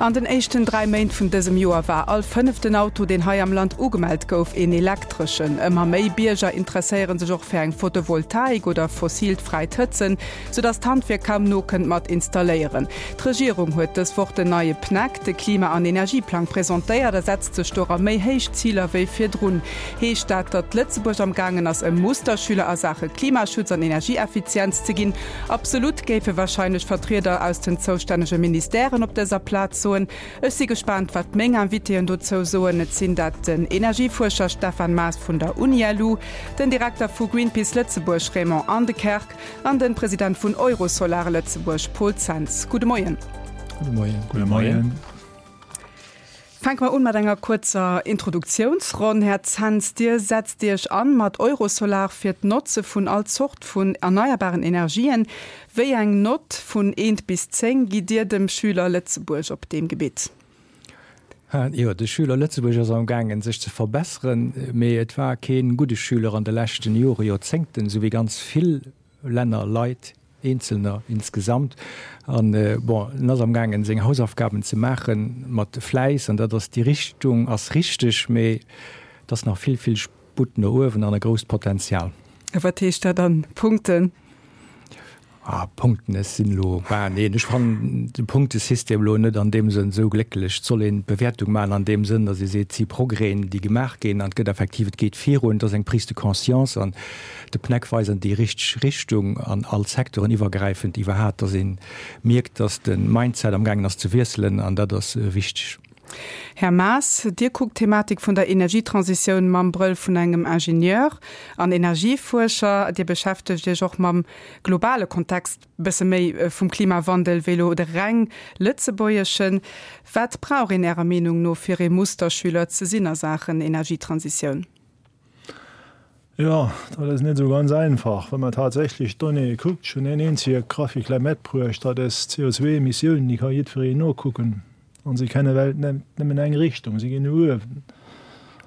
An den éischten 3 Méint vun dësem Joer war all fënneften Auto, deen hei am Land ugemellt gouf, een elektreschen. Ëmmer méi Bierger interesséiere sech och fir eng Photovoltaik oder fossilt fräit Hëtzen, soudass d'Handwierk kaum nokënnt mat installéieren. D'Regierung huet dës Woch den neie PNEC, de Klima an Energieplang, presentéiert a setzt sech dora méi héich Ziler wéi virdrun. Heescht dat, datt Lëtzebuerg am gaangen ass e Musterschüler a Saache Klimaschutz an Energieeffizienz ze ginn? Absolut, géife wahrscheinlech Vertrieder aus den zoustännege Ministèren op dëser Plaz soen. Ech si gespaant, wat meng Invitéen dozou soen. Et sinn dat den Energiefuerscher Stefan Maas vun der UniLu, den Direkter vu Greenpeace Lëtzebuerg Raymond Andekerk an den President vun Eurosolar Lëtzebuerg Paul Zens. Gudde Moien. Gudde Moien. Gudde Moien. Fänke mer un mat enger kuerzer Introduktiounsronn. Här Zens, Dir setzt Iech an mat Eurosolar fir d'Notze vun all Zort vun erneierbaren Energien. Wéi eng Nott vun eent bis 10 gitt Dir dem Schüler Lëtzebuerg op deem Gebitt? Jo, de Schüler Lëtzebuerg ass amgaangen sech ze verbesseren, mee et war kee gudde Schüler an de leschten Jore, Joerzéngten, esou wéi ganz vill Länner, Leit, Eenzelner insgesamt. An, bon, en ass amgaangen, seng Hausaufgaben ze maache mat Fläiss, an dat ass, déi Richtung ass richteg, mee et ass nach vill, vill Sputt no uewen an e grousst Potenzial. A wat heescht dat an Punkten? Ah, Punkten, ech sinn elo, bah, neen, ech fannen de Punktesystem elo net an deem Sënn esou glécklech. Et soll een d'Bewäertung maachen an deem Sënn, datt ee seet, et si Progrèsen, déi gemaach ginn an et gëtt effektiv, et geet virun, et ass eng Prise de conscience an de PNEC weist an déi richteg Richtung an all Secteuren iwwergräifend iwwerhat, datt ee mierkt, datt de Mindset amgaangen ass ze wiesselen an dat ass wichteg. Här Maas, Dir kuckt d'Thematik vun der Energietransitioun mam Brëll vun engem Ingenieur an Energiefuerscher. Dir beschäftegt Iech och mam globale Kontext, bësse méi vum Klimawandel wéi elo de reng lëtzebuergeschen. Wat brauch een Ärer Meenung no fir ee Musterschüler ze sinn a Saachen Energietransitioun? Jo, dat ass net esou ganz einfach. Wa mer tatsächlech d'Donnéeë kuckt, ech hunn een eenzege Graphique lei matbruecht, dat ass d'CO2-Emissiounen, déi ka jiddwereen nokucken an se kennen well net nëmmen eng Richtung, se ginn no uewen.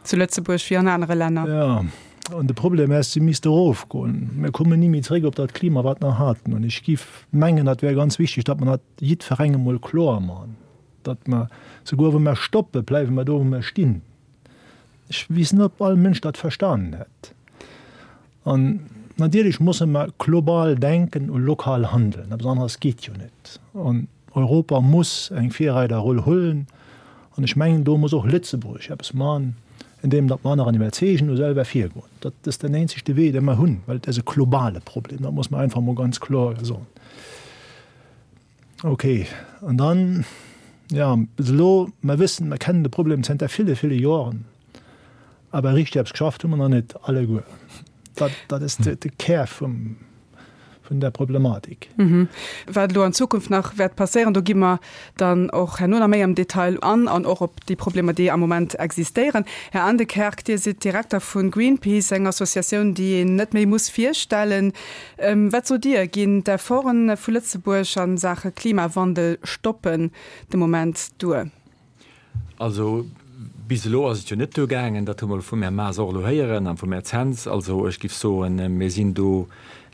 Zu Lëtzebuerg wéi an anere Länner. Jo, an de Problem ass, se misste erofgoen. Mir kommen ni méi zréck op dat Klima, wat mer haten. An ech géif mengen, dat wär ganz wichteg, datt mer dat jiddwerengem emol kloer maachen, datt mer, souguer wa mer stoppen, bleiwe mer do, wou mer stinn. Ech weess net, ob all Mënsch dat verstanen hätt. An natierlech musse mer global denken u lokal handeln. Eppes aneres geet jo net. An Europa muss eng Virreiderroll huelen. An ech mengen, do muss och Lëtzebuerg eppes maachen, andeem datt mer aneren iwwerzeegen u selwer virgoen. Dat ass den eenzegte Wee, dee mer hunn, well et ass e globale Problem. Dat muss mer einfach emol ganz kloer soen. Ok, an dann, jo, bis elo, mer wëssen, mer kennen de Problem zënter ville, ville Joren, awer richteg eppes geschafft hu mer nach net alleguer. Dat, dat ass de, de Kär vum, vun der Problematik. Wat elo an Zukunft nach wäert passéieren, do gi mer dann och herno nach méi am Detail an, an och op déi Problemer, déi am Moment existéieren. Här Andekerk, Dir sidd Direkter vu Greenpeace, eng Associatioun, déi een net méi muss virstellen. Wat sot Dir, ginn d'Efforte vu Lëtzebuerg a Saache Klimawandel stoppen de Moment duer? Also bis elo ass et jo net duergaangen, dat hu mer elo vum Här Maas och elo héieren a vum Här Zens. Also ech géif soen, mir sinn do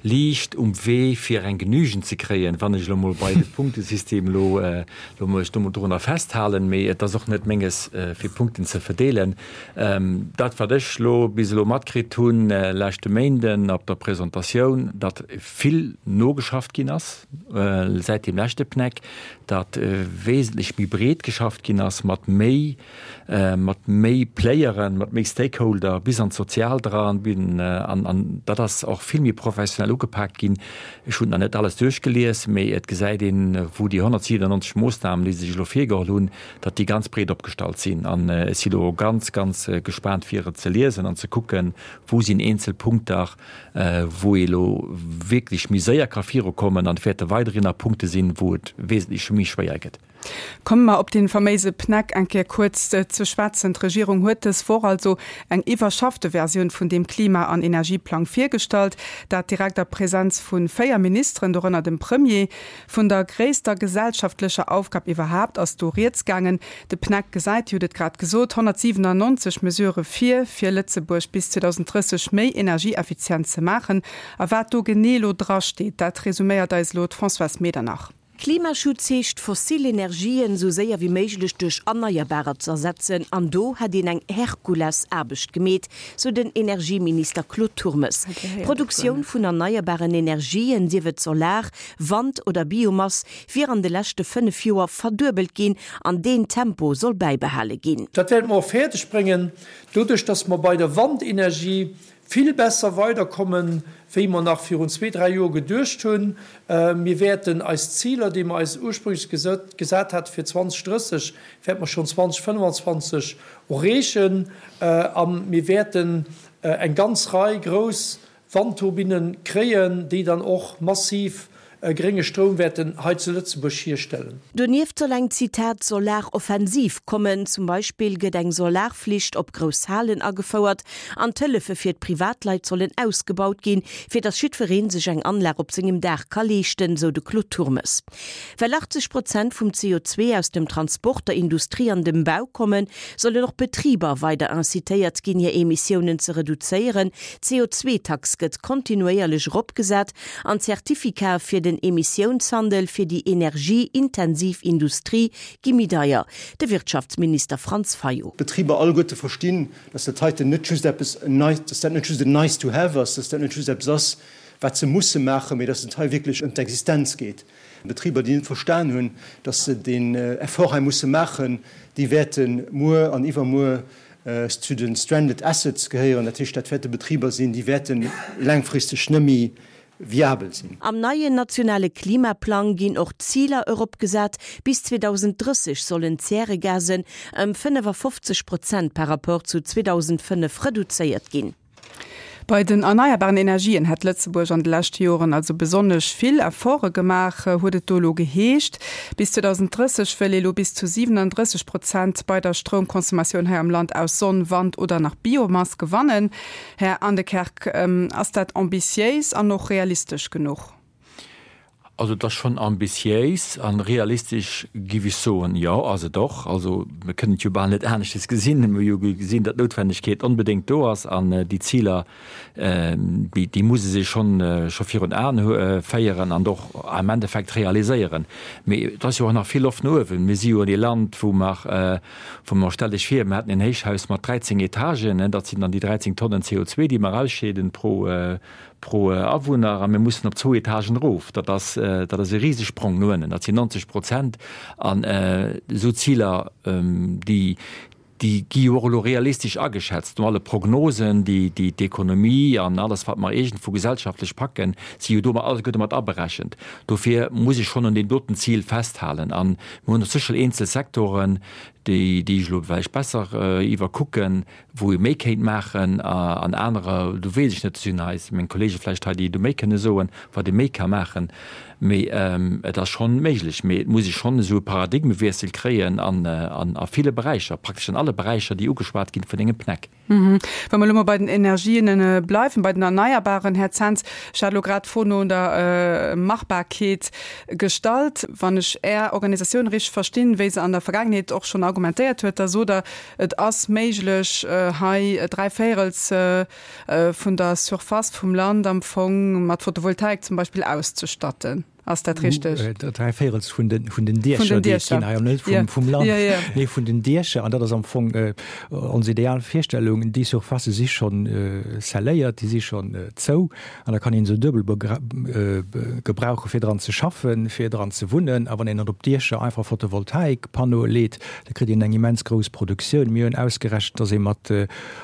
liicht um Wee fir eng Genügend ze kréien, wann ech elo mol bei de Punktesystem elo elo mech do mol dorunner festhalen. Mee et ass och net Menges fir Punkten ze verdeelen. Dat wat ech elo bis elo matkritt hunn leschte Méinden op der Presentatioun, datt vill nogeschafft ginn ass säit deem leschte PNEC, datt wesentlech méi breet geschafft ginn ass mat méi mat méi Playeren, mat méi Stakeholder bis an d'Soziaalt eran, an dat ass och vill méi professionell ugepaakt ginn. Ech hunn nach net alles duerchgelies, mee et gesäit een, wou déi 197 Moossnamen, déi se sech elo virgeholl hunn, datt déi ganz breet opgestallt sinn. An ech si lo ganz, ganz gespaant, fir et ze liesen an ze kucken, wou sinn eenzel Punkter, wou ee lo wierklech méi séier ka virukommen an et wäerte weiderhin nach Punkte sinn, wou et wesentlech méi schwéier gëtt. Komme mer op dee faméise PNEC eng Kéier kuerz ze schwätzen. D'Regierung huet dës Woch also eng iwwerschaffte Versioun vun deem Klima an Energieplang virgestallt, dat direkt a Presenz vu 4 Ministeren, dorënner dem Premier. Vun der gréisster gesellschaftlecher Aufgab iwwerhaapt ass do rieds gaangen. De PNEC gesäit, Dir hutt et grad gesot, 197 Mesurë vir, fir Lëtzebuerg bis 2030 méi energieeffizient ze maachen. A wat do genee elo drasteet, dat resuméiert eis elo d'Françoise Medernach. Klimaschutz heescht, fossil Energien esou séier wéi méiglech duerch erneierbarer ze ersetzen. An do hätt een eng Herkulesaarbecht gemeet, sou den Energieminister Claude Turmes. D'Produktioun vun erneierbaren Energien, sief et Solar, Wand oder Biomass, wier an de leschte 5 Joer verduebelt ginn an deen Tempo soll bäibehale ginn. Dat wäerte mer och fäerdeg bréngen, doduerch dass mer bei der Wandenergie vill besser weiderkommen, wéi mer nach virun zwee, dräi Joer geduecht hunn. Mir wäerten eis Ziler, déi mer eis ursprünglech gesat hate fir 2030, wäerte mer schonn 2025 erreechen. A mir wäerten eng ganz Rei grouss Wandturbinne kréien, déi dann och massiv grénge Stroum wäerten hei zu Lëtzebuerg hierstellen. Donieft soll eng, Zitat, Solaroffensiv kommen. Zum Beispill gëtt eng Solarflicht op grouss Halen agefouert an d'Hëllefe fir d'Privatleit sollen ausgebaut ginn, fir datt jiddweree sech eng Anlag op sengem Daach ka leeschten, sou de Claude Turmes. Well 80 Prozent vum CO2 aus dem Transport, der Industrie an dem Bau kommen, sollen och d'Betriber weider incitéiert ginn, hir Emissiounen ze reduzéieren. D'CO2-Tax gëtt kontinuéierlech eropgesat an d'Zertifikate fir den Emissiounshandel fir déi energieintensiv Industrie gi méi deier. De Wirtschaftsminister Franz Fayot. D'Betriber alleguerte verstinn, dass dat heiten net just eppes, dass dat net just en nice to have ass, dass dat net just eppes ass, wat se musse maachen, mee dass et hei wierklech ëm d'Existenz geet. Betriber, déi net verstan hunn, dass se deen Effort hei musse maachen, déi wäerte muer an iwwermuer zu de stranded assets gehéieren. Dat heescht, dat wäerte Betriber sinn, déi wäerte laangfristeg net méi viabel sinn. Am neien nationale Klimaplang ginn och d'Ziler eropgesat. Bis 2030 sollen d'Zäregasen ëm 55 Prozent par Rapport zu 2005 reduzéiert ginn. Bei den erneierbaren Energien hätt Lëtzebuerg an de leschte Joren also besonnesch vill Efforte gemaach, huet et do elo geheescht. Bis 2030 wëll ee lo bis zu 37 Prozent bei der Stroumconsommatioun hei am Land aus Sonn, Wand oder nach Biomass gewannen. Här Aendekerk, ass dat ambitiéis an och realistesch genuch? Also et ass schonn ambitiéis an realistesch, giff ech soen, jo ass et och. Also mir kënnen et jo bal net aneschtes gesinn. Mir hu jo gesinn, datt d'Noutwendegkeet onbedéngt do ass an déi Ziler, déi déi muss ee sech schonn scho virun Aen féieren an och am Endeffekt realiséieren. Mee et ass jo och nach vill Loft no uewen. Mir si jo e Land, wou mer, wou mer, stellt Iech vir, mir hätten en Héichhaus mat 13 Etagen, dat sinn dann déi 13 Tonnen CO2, déi mer ausscheeden pro, Pro Awunner, a mir mussen op zwou Etagen erof. Dat ass, dat ass e Risesprong no ënnen. Dat sinn 90 Prozent. An esou Ziler, déi, déi gi jo och elo realistesch ageschätzt. No alle Prognosen, déi, déi d'Ekonomie an alles, wat mer iergendwou gesellschaftlech packen, si jo do alleguerte mat aberechent. Dofir muss ech schonn un deem doten Zil festhalen. A mir hunn och sécher eenzel Sektoren, déi, déi ech elo vläicht besser iwwerkucken, wou ee méi kéint maachen an anerer, do weess ech net, do sinn eis, meng Kollege vläicht hei, déi do méi kënne soen, wat ee méi ka maachen. Mee et ass schonn méiglech. Mee et muss ee schonn esou e Paradigmewiessel kréien an a ville Beräicher, praktesch an alle Beräicher, déi ugeschwat ginn vun engem PNEC. Wa mer elo mol bei den Energien bleiwen, bei den Erneierbaren, Här Zens, ech hat elo grad d'Fro no der Machbarkeet gestallt. Wann ech Är Organisatioun richteg verstinn, wéi se an der Vergaangenheet och schonn argumentéiert huet, da sot Der, Et ass méiglech, hei dräivéierels vun der Surface vum Land am Fong mat Photovoltaik zum Beispill auszestatten. Ass dat richteg? Dräivéierels vun den, vun den Diecher, déi et ginn hei, net vum, vum Land, mee vun den Diecher. An dat ass am Fong ons ideal Virstellung. Déi Surfacë si schonn scelléiert, déi si schonn zou. An da kann een se duebel gebrauchen, fir dran ze schaffen, fir dran ze wunnen. A wann een dann op d'Diecher einfach Photovoltaikpannoe leet, da kritt een eng immens grouss Produktioun. Mir hunn ausgerechent, dass ee mat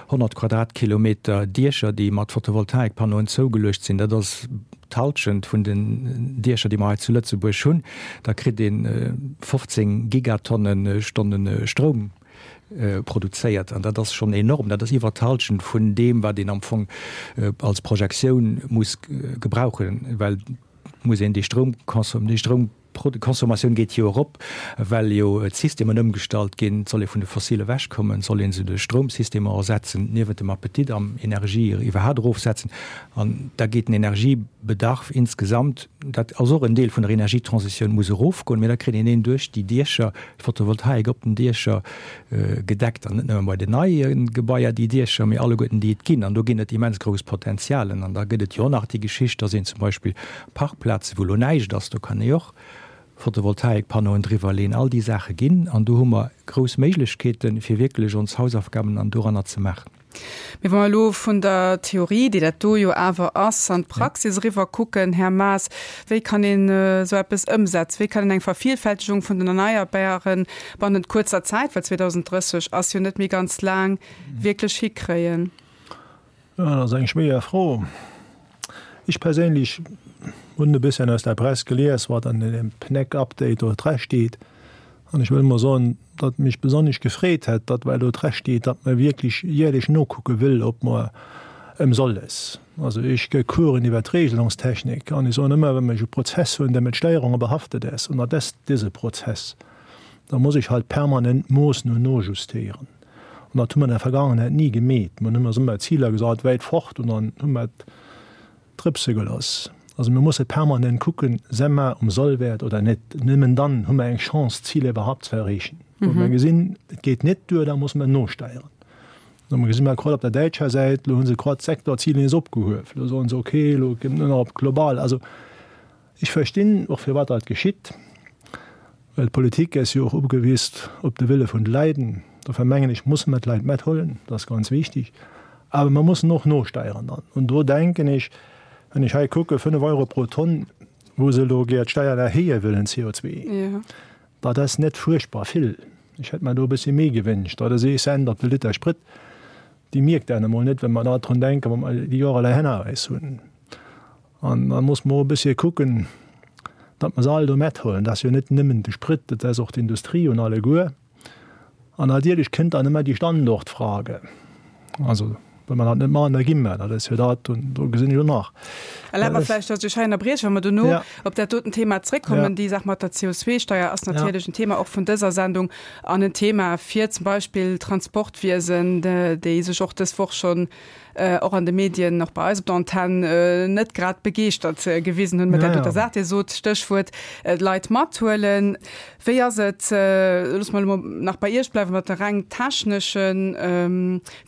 100 Quadratkilometer Diecher, déi mat Photovoltaikpannoen zougeluecht sinn, dat ass d'Halschent vun den Diecher, déi mer hei zu Lëtzebuerg hunn, da kritt ee 15 Gigatonne-Stonne Stroum produzéiert. An dat ass schonn enorm. Dat ass iwwert d'Halschent vun deem, wat een am Fong als Projektioun muss gebrauchen, well et muss een déi Stroumconsom-, déi Stroumconsommatioun geet jo erop, well jo d'Systemen ëmgestallt ginn. Et soll ee vun de Fossile ewechkommen, et soll ee se duerch Stroumsystemer ersetzen, niewent dem Appetit am Energie iwwerhaapt erofsetzen. An da geet den Energiebedarf insgesamt, dat ass och en Deel vun der Energietransitioun, muss erofgoen. Mee da kritt een een duerch déi Diecher, d'Photovoltaik op den Diecher gedeckt an net nëmme bei den neie Gebaier déi Diecher, mee alleguerten déi et ginn. An do ginn et immens grouss Potenzialen. An da gëtt et jo och nach déi Geschicht, dass een zum Beispill Parkplaze wou elo näischt ass, do kann ee och. Photovoltaikpannoen driwwer leen, all déi Saache ginn. An do hu mer grouss Méiglechkeeten, fir wierklech ons Hausaufgaben an doranner ze maachen. Mee wa mer elo vun der Theorie, déi dat do jo awer ass, an d'Praxis eriwwer kucken, Här Maas, wéi kann een esou eppes ëmsetzen? Wéi kann een eng Vervielfältegung vun den Erneierbaren bannent kuerzer Zäit, well 2030 ass jo net méi ganz laang, wierklech hikréien? Jo, dat ass eng schwéier Fro. Ech perséinlech hunn e bësschen aus der Press gelies, wat an deem PNEC-Update do dra steet. An ech wëll emol soen, datt mech besonnesch gefreet hätt, datt well do dra steet, datt mer wierklech jäerlech nokucke wëll, ob mer ëm soll es. Also ech gë Coursen iwwer d'Regelungstechnik an ech soen ëmmer, wa mer e Prozess hunn, dee mat Steierunge behaftet ass, an dat ass dëse Prozess, da muss ech halt permanent moossen und nojustéieren. An dat hu mer an der Vergangenheit ni gemeet. Mer hunn eis ëmmer Ziler gesat, wäit fort, an dann hu mer et drëpse gelooss. Also mir musse permanent kucken, Se mer um Sollwäert oder net? Nëmmen dann hu mer eng Chance, d'Ziler iwwerhaupt ze erreechen. Wa mer gesinn, et geet net duer, da musse mer nosteieren. Lo gesi mer grad op der däitscher Säit, elo hu se grad d'Sektorziler nees opgehuef. Elo soen se, okay, elo gëtt nëmmen nach op global. Also Ech verstinn och firwat dat geschitt, well d'Politik ass jo och ugewiesst op de Wille vun de Läiden. Dofir mengen ech, musse mer d'Leit mathuelen, dat ass ganz wichtig. Awer mer mussen och nosteieren dann. An do denken ech, wann ech hei kucke 5 Euro pro Tonn, wou se elo gär d'Steier erhéije wëllen, CO2, dat ass net fuerchtbar vill. Ech hätt mer do e bëssi méi gewënscht. Dat ass ee Cent op de Liter Sprit. Déi mierkt een emol net, wa mer da drun denken, wa mer déi Joer elei hanner eis hunn. An da muss mer och e bëssche kucken, datt mer se all do mathuelen. Dat ass jo net nëmmen de Sprit, dat ass och d'Industrie un alleguer. An natierlech kënnt dann ëmmer déi Standortfrage. Also, wa mer dat net maachen, da gi mer. Dat ass jo dat, do gesinn ech och nach. Erlaabt mer vläicht, datt ech hei ënnerbrieche, wa mer dono op dat doten Thema zréckkommen. Déi Saach mat der CO2-Steier ass natierlech en Thema och vun dëser Sendung an en Thema fir zum Beispill d'Transportwiesen, déi sech och dës Woch schonn och an de Medien, och bei eis op der Antenn, net grad begeeschtert gewisen hunn mat där doter Saach. Dir sot, Stéchwuert, d'Leit mathuelen. Wéi ass et, loosse mer elo mol nach bei Iech bleiwen, mat de reng technesche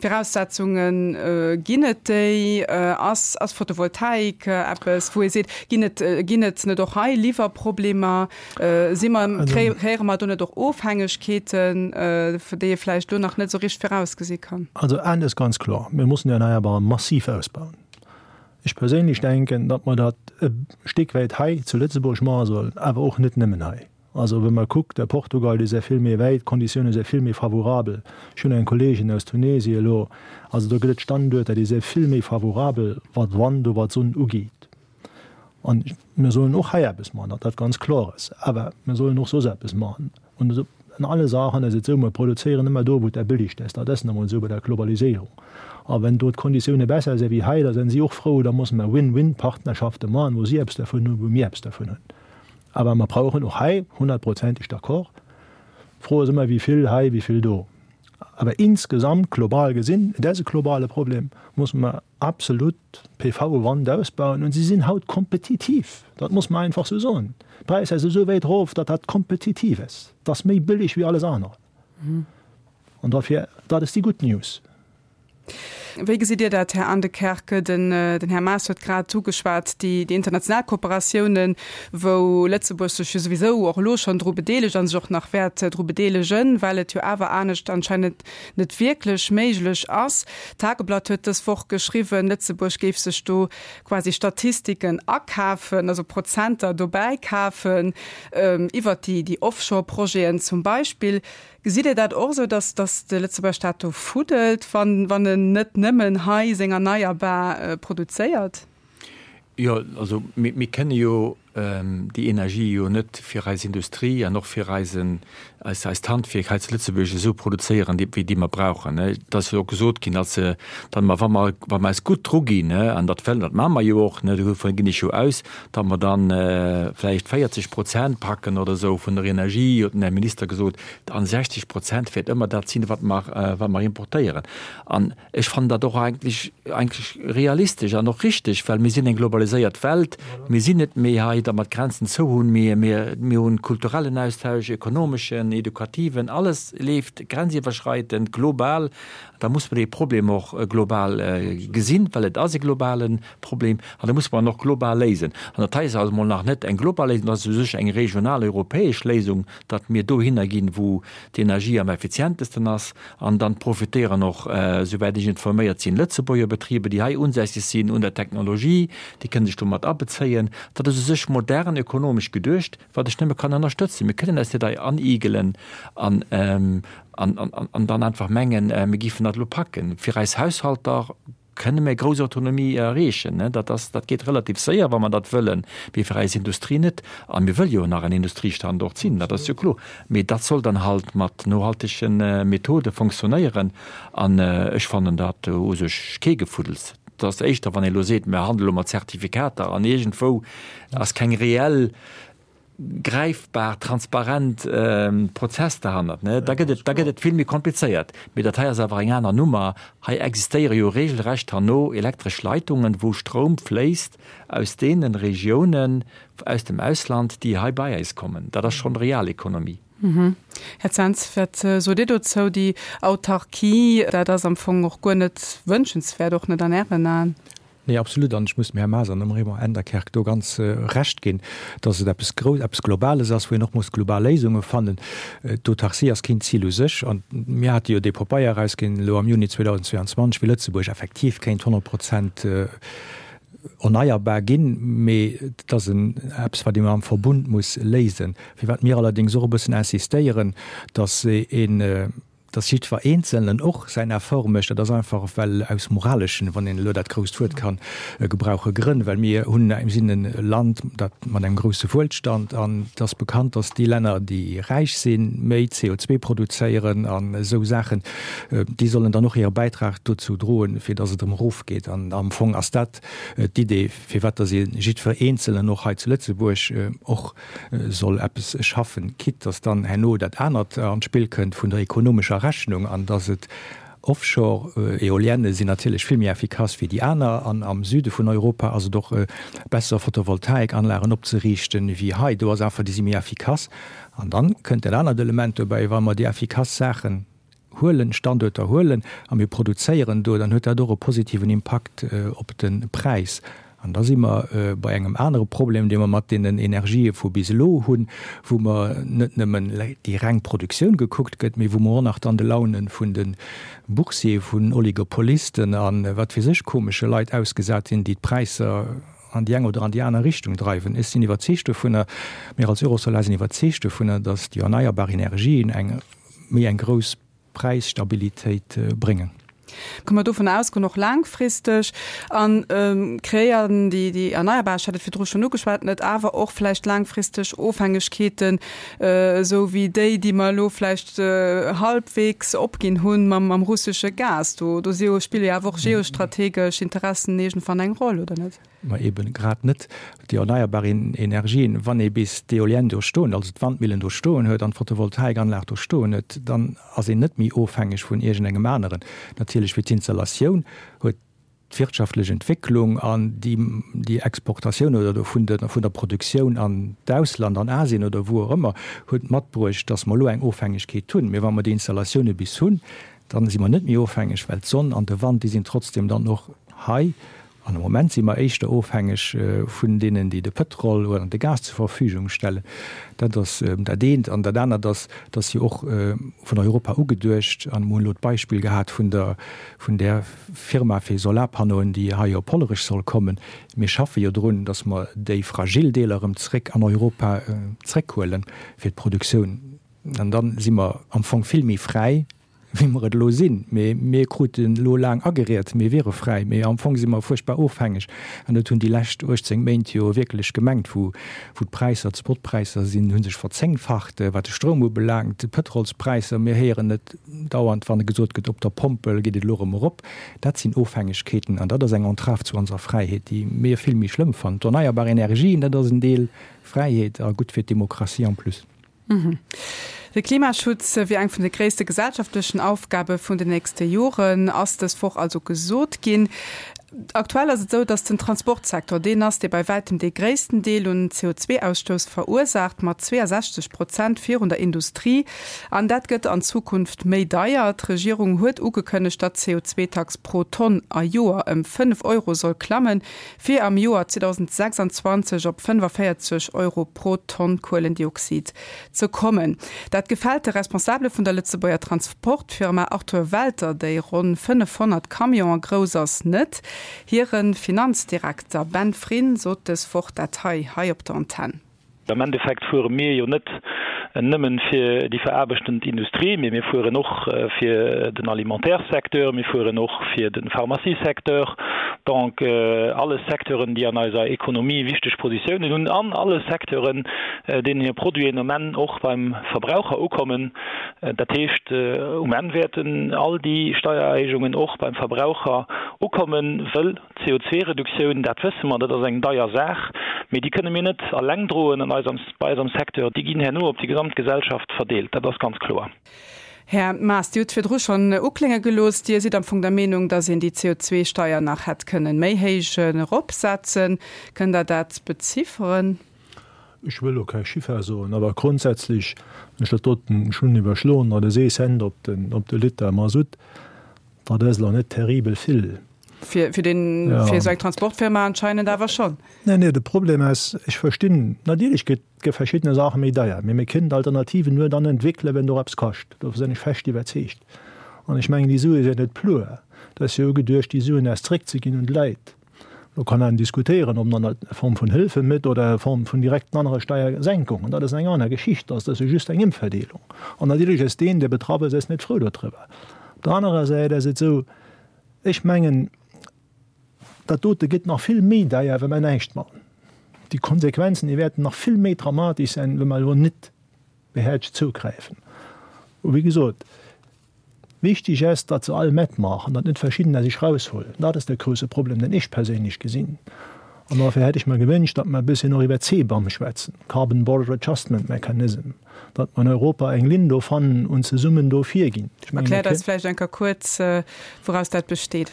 Viraussetzungen? Ginn et déi? Ass, ass Photovoltaik eppes, wou ee seet, ginn et, ginn et net och hei Liwwerproblemer? Si mer, kreéiere mer do net och Ofhängegkeeten, déi ee vläicht elo nach net esou richteg virausgesi kann? Also eent ass ganz kloer, Mir mussen déi Erneierbaren massiv ausbauen. Ech perséinlech denken, datt mer dat e Stéck wäit hei zu Lëtzebuerg maache sollen, awer och net nëmmen hei. Also wa mer kuckt, a Portugal, déi si vill méi wäit, d'Konditioune si vill méi favorabel. Ech hunn eng Kolleegin aus Tunesien elo, also do gëtt et Standuerter, déi si vill méi favorabel, wat Wand oder wat Sonn ugeet. An mir sollen och hei eppes maachen, datt dat ganz kloer ass. Awer mir sollen och soss eppes maachen. An an alle Saachen ass et esou, mir produzéieren ëmmer do, wou et der billigst ass. Dat ass nu emol esou bei der Globaliséierung. A wenn do d'Konditioune besser si wéi hei, da sinn si och frou. Da musse mer Win-win-Partnerschafte maachen, wou si eppes dervun hunn, wou mir eppes dervun hunn. Awer mer brauchen och hei, honnertprozenteg d'accord, d'Fro ass ëmmer, wéi vill hei, wéi vill do. Awer insgesamt, global gesinn, et ass e globale Problem, musse mer absolut PV Wand ausbauen und si sinn haut kompetitiv, dat muss mer einfach sou soen. D'Präisser si sou wäit erof, datt dat kompetitiv ass, dat ass méi bëlleg wéi alles anert an dofir, dat ass déi gutt News. Wéi gesitt Dir dat, Här Aendekerke? Den Här Maas huet grad ugeschwat, déi international Kooperatiounen, wou Lëtzebuerg sech jo souwisou och elo schonn dru bedeelegt a sech och nach wäert dru bedeelegen, well et jo awer anescht anscheinend net wierklech méiglech ass. D'Tageblatt huet dës Woch geschriwwen, Lëtzebuerg géif sech do quasi Statistiken akafen, also Prozenter dobäi kafen, iwwert déi Offshore-Projeten zum Beispill. Gesitt Dir dat och esou, datt datt de Lëtzebuerger Staat do fuddelt, wann wann en net nëmmen hei seng Erneierbar produzéiert? Jo, also mir kënne jo déi Energie jo net fir eis Industrie an och fir eisen, eis, eist Handwierk hei zu Lëtzebuerg esou produzéieren, déi, wéi déi mer brauchen. Et ass jo och gesot ginn, datt se, datt mer, wa mer, wa mer eis gutt druginn, an dat wëllen, dat maache mer jo och, dovun ginn ech jo aus, datt mer dann vläicht 40 Prozent packen oder esou vun der Energie, huet den Här Minister gesot, an 60 Prozent wäert ëmmer dat sinn, wat mer, wat mer importéieren. An Ech fannen dat och eigentlech, eigentlech realistesch an och richteg, well mir sinn eng globaliséiert Welt. Mir sinn net méi hei. datt mer d'Grenzen zou hunn. Mir, mir, mir hunn kulturellen Austausch, ekonomeschen, edukativen, alles leeft grenziwwerschreitend, global. Da muss mer dee Problem och global gesinn, well et ass e globale Problem an da muss mer en och global léisen. An dat hei ass also emol nach net eng global Léisung, dat ass u sech eng regional europäesch Léisung, datt mir dohinner ginn, wou d'Energie am effizientesten ass. An dann profitéieren och, souwäit ech informéiert sinn, Lëtzebuerger Betriber, déi hei unsässeg sinn, un der Technologie, déi kënne sech do mat abezéien. Dat ass u sech modern ökonomesch geduecht, wat ech nëmme kann ënnerstëtzen. Mir kënnen eis net hei anigelen an, an dann einfach mengen, mir géifen dat elo packen. Fir eis Haushalter kënne mir grouss Autonomie erreechen. Dat ass, dat geet relativ séier, wa mer dat wëllen, mee fir eis Industrie net. A mir wëlle jo nach en Industriestandort sinn, dat ass jo kloer. Mee dat soll dann halt mat nohaltege Methode fonctionnéieren. An ech fannen dat u sech kee Gefuddels. Et ass éischter, wann ee elo seet, mir handele elo mat Zertifikater an iergendwou ass keng reell gräifbar, transparent Prozess derhannert, ne, da gëtt et, da gëtt et vill méi komplizéiert. Mee dat hei ass awer eng aner Nummer. Hei existéiere jo regelrecht herno elektresch Leitungen, wou Stroum fléisst aus deene Regiounen aus dem Ausland, déi hei bei eis kommen. Dat ass schonn Realekonomie. Här Zens, wat sot Dir dozou? Déi Autarkie, dat ass am Fong och guer net wënschenswäert, och net an Ären Aen? Nee, absolut. An ech muss dem Här Maas an dem Raymond Enderkerk do ganz Recht ginn, dass et eppes Grouss, eppes Globales ass, wou een och muss global Léisunge fannen. D'Autarcie ass keen Zil u sech. An mir hate jo dee Popeier erausginn elo am Juni 2022, wéi Lëtzebuerg effektiv kéint 100 Prozent erneierbar ginn. Mee et ass en eppes, wat ee am Verbund muss léisen. Firwat mir allerdéngs och e bëssen insistéieren, dass een, dass jiddwer Eenzelnen och säin Effort mécht, dat ass einfach well aus moraleschen, wann een elo dat grousst Wuert kann gebrauchen, Grënn, well mir hunn, mir sinn e Land, dat mat engem grousse Wuelstand, an et ass bekannt, dass déi Länner, déi räich sinn, méi CO2 produzéieren an esou Saachen, déi sollen dann och hire Bäitrag dozou droen, fir dass et erëm erofgeet. An am Fong ass dat d'Idee, firwat dass ee jiddwer Eenzelnen och hei zu Lëtzebuerg och soll eppes schaffen, quitte dass dann herno dat anert an d'Spill kënnt vun der ekonomescher Rechnung an dass et Offshore-Eolienne sinn natierlech vill méi effikass wéi déi aner an am Süde vun Europa ass et och besser Photovoltaikanlagen opzeriichten wéi hei. Do ass einfach, déi si méi effikass. An dann kënnt dat anert Element dobäi, wa mer déi effikass Saachen huelen, Standuerter huelen a mir produzéieren do, dann huet dat och e positiven Impakt op de Präis. An da si mer bei engem anere Problem, dee mer mat deenen Energië vu bis elo hunn, wou mer net nëmmen déi reng Produktioun gekuckt gëtt, mee wou mer och nach dann de Laune vun de Boursier, vun Oligopolisten a wat weess ech komesche Leit ausgesat sinn, déi d'Präisser an déi eng oder an déi aner Richtung dreiwen. Ech sinn iwwerzeegt dovunner, mir als Eurosolar sinn iwwerzeegt dovunner, datt déi erneierbar Energien eng méi eng grouss Präisstabilitéit bréngen. Kënne mer dovun ausgoen, och laangfristeg, a kreéieren déi déi erneierbar, ech hat et virdru schonn ugeschwat, net awer och vläicht laangfristeg Ofhängegkeeten, esou wéi déi, déi mer elo vläicht halbwegs opginn hunn mam mam russesche Gas. Do do si jo, spille jo awer och geostrategesch Interessen iergendwann eng Roll, oder net? Ma eben grad net déi erneierbar Energien. Wann ee bis d'Eolienne do stoen, also d'Wandmillen do stoen huet an d'Photovoltaikanlag do stoen huet, dann ass een net méi ofhängeg vun iergendengem aneren. Natierlech fir d'Installatioun huet d'wirtschaftlech Entwécklung an déi Exportatioun oder do vun der Produktioun an d'Ausland, an Asien oder wou och ëmmer, huet matbruecht, dass mer elo eng Ofhängegkeet hunn. Mee wa mer déi Installatioune bis hunn, dann si mer net méi ofhängeg, well d'Sonn an de Wand, déi sinn trotzdem dann och hei. An am Moment si mer éischter ofhängeg vun deenen, déi de Pëtrol oder de Gas zur Verfügung stellen. Dat ass dat eent. An dat anert ass, dass jo och vun Europa ugeduecht, an mer hunn elo d'Beispill gehat vun der, vun där Firma fir Solarpanneauen, déi hei op Hollerech soll kommen. Mir schaffe jo drun, dass mer déi fragil Deeler erëm zréck an Europa zréckhuelen fir d'Produktioun. An da si mer am Fong vill méi fräi wéi mer et elo sinn. Mee mir kruten elo laang ageriet, mir wiere fräi, mee am Fong si mer fuerchtbar ofhängeg. An dat hunn déi lescht 18 Méint jo wierklech gemengt, wou d'Präisser, d'Spotpräisser sinn, hu sech verzéngfacht, wat de Stroum ubelaangt, d'Pëtrolspräisser, mir héieren et dauernd, wann gesot gëtt, op der Pompel geet et elo erëm erop. Dat sinn Ofhängegkeeten an dat ass eng Entrave zu onser Fräiheet, déi mir vill méi schlëmm fannen. D'erneierbar Energien, dat ass en Deel Fräiheet a gutt fir d'Demokratie en plus. De Klimaschutz wier eng vun de gréisste gesellschaftlechen Aufgabe vun den nächste Joren, ass dës Woch also gesot ginn. Aktuell ass et esou, datt den Transportsecteur deen ass, dee bei wäitem dee gréissten Deel un CO2-Ausstouss verursaacht, mat 62 Prozent virun der Industrie. An dat gëtt an Zukunft méi deier. D'Regierung huet ugekënnegt, datt d'CO2-Tax pro Tonn a Joer ëm 5 Euro soll klammen, fir am Joer 2026 op 45 Euro pro Tonn Kuelendioxid ze kommen. Dat gefält de Responsabele vun der Lëtzebuerger Transportfirma Arthur Welter, déi ronn 500 Camionen grouss ass, net. Hire Finanzdirekter Ben Frin sot dës Woch dat hei hei op der Antenn. Am Endeffekt fuere mir jo net nëmmen fir déi veraarbechtend Industrie, mee mir fueren och fir den Alimentairesecteur, mir fueren och fir de Pharmaciesecteur, donc alles Secteuren, déi an eiser Ekonomie wichteg Positiounen hunn an alle Secteuren, deenen hir Produiten um Enn och beim Verbraucher ukommen. Dat heescht, um Enn wäerten all déi Steiererhéijungen och beim Verbraucher ukommen, wëll d'CO2-Reduktioun, dat wësse mer, dat ass eng deier Saach, mee déi kënne mir net alleng droen an eis, bei eis am Secteur. Déi ginn herno op déi gesamt Gesellschaft verdeelt, dat ass ganz kloer. Här Maas, Dir hutt virdru schonn uklénge gelooss, Dir sidd am Fong der Meenung, datt een déi CO2-Steier nach hätt kënnen méi héich eropsetzen. Kënnt Der dat bezifferen? Ech wëll elo kei Chiffer soen, awer grondsätzlech, wann ech dat doten, ech hunn iwwerschloen, dat ass ee Cent op den, op de Liter Masutt, dat ass elo net terribel vill. Fir, fir den, fir esou eng Transportfirma anscheinend awer schonn. Nee, nee, de Problem ass, ech verstinn, natierlech gëtt, gi verschiddene Saache méi deier, mee mir kënnen d'Alternativen nur dann entwéckelen, wenn et och eppes kascht. Dovun sinn ech fest iwwerzeegt. An ech mengen, déi Sue sinn net pur. Et ass jo ugeduecht, déi Suen erst zréckzeginn un d'Leit. Do kann een diskutéieren, ob man dat a Form vun Hëlfe métt oder a Form vun direkten anere Steiersenkungen. Dat ass eng aner Geschicht. Dat ass jo just eng Ëmverdeelung. An natierlech ass deen, dee betraff ass, ass net frou dodriwwer. Op der anerer Säit ass et esou, ech mengen, dat dote gëtt nach vill méi deier, wa mer näischt maachen. Déi Konsequenzen, déi wäerten nach vill méi dramatesch sein, wa mer elo net behäertegt zougräifen. Wéi gesot, Wichtig ass, datt se all matmaachen, datt net verschiddener sech raushuelen. Dat ass de grouse Problem, deen ech perséinlech gesinn. An dofir hätt ech mer gewünscht, datt mer e bësschen och iwwer CBAM schwätzen, Carbon Border Adjustment Mechanism, datt mer an Europa eng Linn do fannen und zesummen do virginn. Ech mengen, mir Erkläert eis vläicht eng Kéier kuerz, wouraus dat besteet.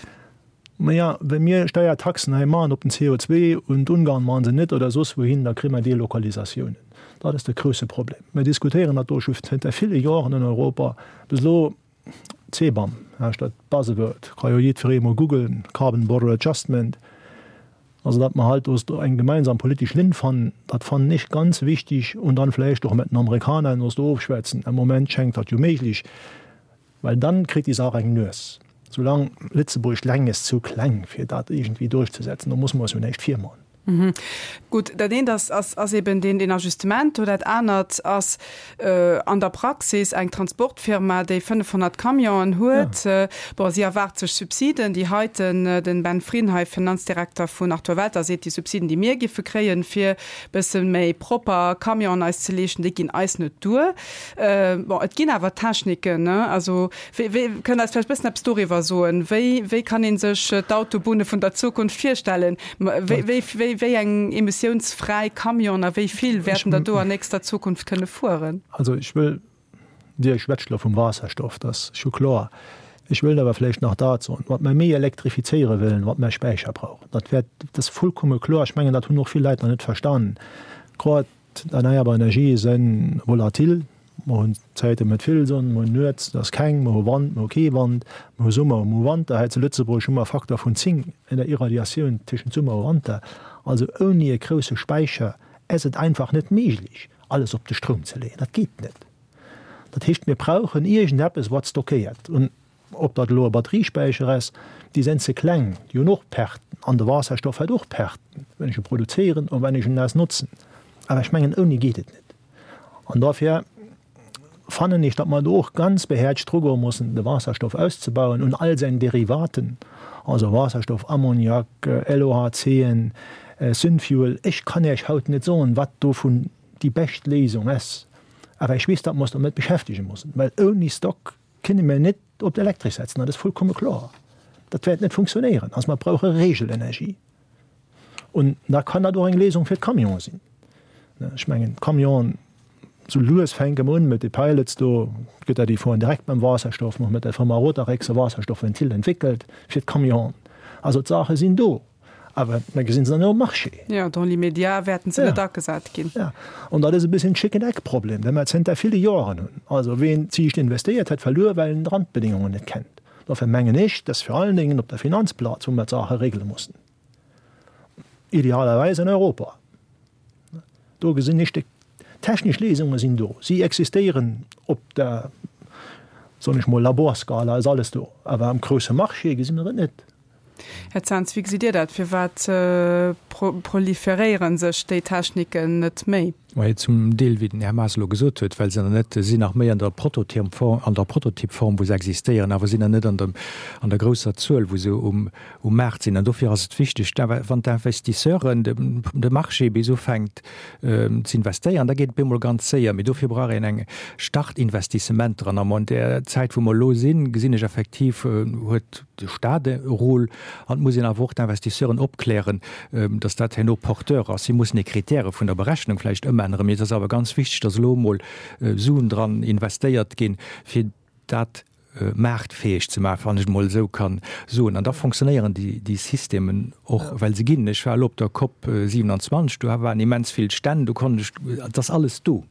Maja, wa mir Steiertaxen hei maachen op den CO2 und Ungarn maachen se net oder soss wouhin, da kréie mer Delokalisatiounen. Dat ass de grouse Problem. Mir diskutéieren dat do scho zënter ville Joren an Europa. Bis elo, CBAM heescht dat Buzzword, ka jo jiddweree mol googlen, Carbon Border Adjustment, also datt mer halt do eng gemeinsam politesch Linn fannen, dat fannen ech ganz wichtig und dann vläicht och mat den Amerikaner ons do ofschwätzen. Am Moment schengt dat jo méiglech. Well dann kritt déi Saach eng Nues. Soulaang Lëtzebuerg leng ass zu kleng fir dat iergendwéi duerchzesetzen, do muss mer eis jo näischt virman. Gutt, dat eent ass, ass eben deen, deen Ajustement do. Dat anert ass an der Praxis eng Transportfirma, déi 500 Camionen huet. Bon, si erwaart sech Subsiden. Déi heiten, den Ben Frin hei, Finanzdirekter vun Arthur Welter, seet, déi Subsiden, déi mir giffe kréien, fir bësse méi propper Camionen eis ze leeschten, déi ginn eis net duer. Bon, et ginn awer Techniken, ne? Also, wéi, wéi, kënnt Der eis vläicht e bëssen eppes doriwwer soen? Wéi, wéi kann ee sech d'Autobunne vun der Zukunft virstellen? Wéi, wéi, wéi, wéi eng emissiounsfräi Camionen a wéi vill wäerten der do an nächster Zukunft kënne fueren? Also, ech wëll, Dir schwätzt elo vum Waasserstoff, dat ass scho kloer. Ech wëllt awer vläicht nach dat soen, Wat mer méi elektrifizéiere wëllen, wat mer Späicher brauchen. Dat wäert, dat ass vollkomme kloer. Ech mengen, dat hunn och vill Leit nach net verstanen. Grad D'erneierbar Energië si volatil. Mer hunn Zäite mat vill Sonn, mer hunn nuets, et ass keng, mer hu Wand, mer hu kee Wand, mer hu Summer, mer hu Wanter. Hei zu Lëtzebuerg hu mer e Faktor vun 10 an der Irradiatioun tëschent Summer a Wanter. Also ouni e grousse Späicher ass et einfach net méiglech, alles op de Stroum ze leeën. Dat geet net. Dat heescht, mir brauchen iergendeppes, wat stockéiert. Ob dat elo e Batteriespäicher ass, déi sinn ze kleng, déi hunn och Perten an de Waasserstoff huet och Perten, wenn ech e produzéieren an wenn ech en naass notzen. Awer ech mengen, ouni geet et net. An dofir fannen ech, datt mer do och ganz behäerzt drugoe mussen, de Waasserstoff auszebauen un all säin Derivaten, also Waasserstoff, Ammoniak, LOHCen, Synfuel. Ech kann Iech haut net soen, wat dovun déi bescht Léisung ass, awer ech weess, datt mer eis domat beschäftege mussen, well ouni Stock Kënne mir net op d'Elektresch setzen, dat ass vollkomme kloer. Dat wäert net funktionéieren. Also mer brauche Regelenergie. Und da kann dat och eng Léisung fir d'Camionen sinn. Ech mengen, d'Camionen, sou lues fänke mer un mat de Pilots do, gëtt dat, déi fueren direkt mam Waasserstoff, mer hu mat der Firma Rotarex e Waasserstoffventil entwéckelt fir d'Camionen. Also d'Saache sinn do, awer mir gesinn se net um Marché. Jo, dans l'immédiat wäerten se net agesat ginn. Jo, an dat ass e bësschen Chicken-Egg-Problem, dee mer zënter ville Joren hunn. Also ween ziicht investéiert, huet verluer, well en d'Randbedingungen net kennt. Dofir mengen ech, dass vir allen Dingen op der Finanzplaz, wou mer d'Saache regele mussen, idealerweis an Europa, Do gesinn ech, déi technesch Léisunge sinn do, si existéieren op der, soen ech mol, Laborskala ass alles do, awer am grousse Marché gesi mer et net. Här Zens, wéi gesitt Dir dat? Firwat proliferéiere sech déi Techniken net méi? Majo, zum Deel, wéi den Här Maas elo gesot huet, well se nach net, se sinn nach méi an der Prototypform, an der Prototypform, wou se existéieren, awer sinn nach net an der, an der grousser Zuel, wou se um, um Maart sinn. An dofir ass et wichteg, wann d'Investisseuren, de Marché bis ufänkt ze investéieren, da geet et bemol ganz séier. Mee dofir brauch een eng Startinvestissementer. An am an där Zäit, wou mer elo sinn, gesinn ech effektiv, huet de Stat e Rôle. An et muss een awer och d'Investisseuren opklären, dass dat herno porteur ass. Si mussen déi Kritäre vun der Berechnung vläicht ëmänneren. Mee et ass awer ganz wichteg, dass elo emol Suen dran investéiert ginn, fir dat maartfäeg ze maachen, wann ech et emol esou kann soen. An da fonctionnéieren déi Systemen och, well se ginn. Ech war elo op der Cop 27, do waren immens vill Stänn, do konnt ech, et ass alles do.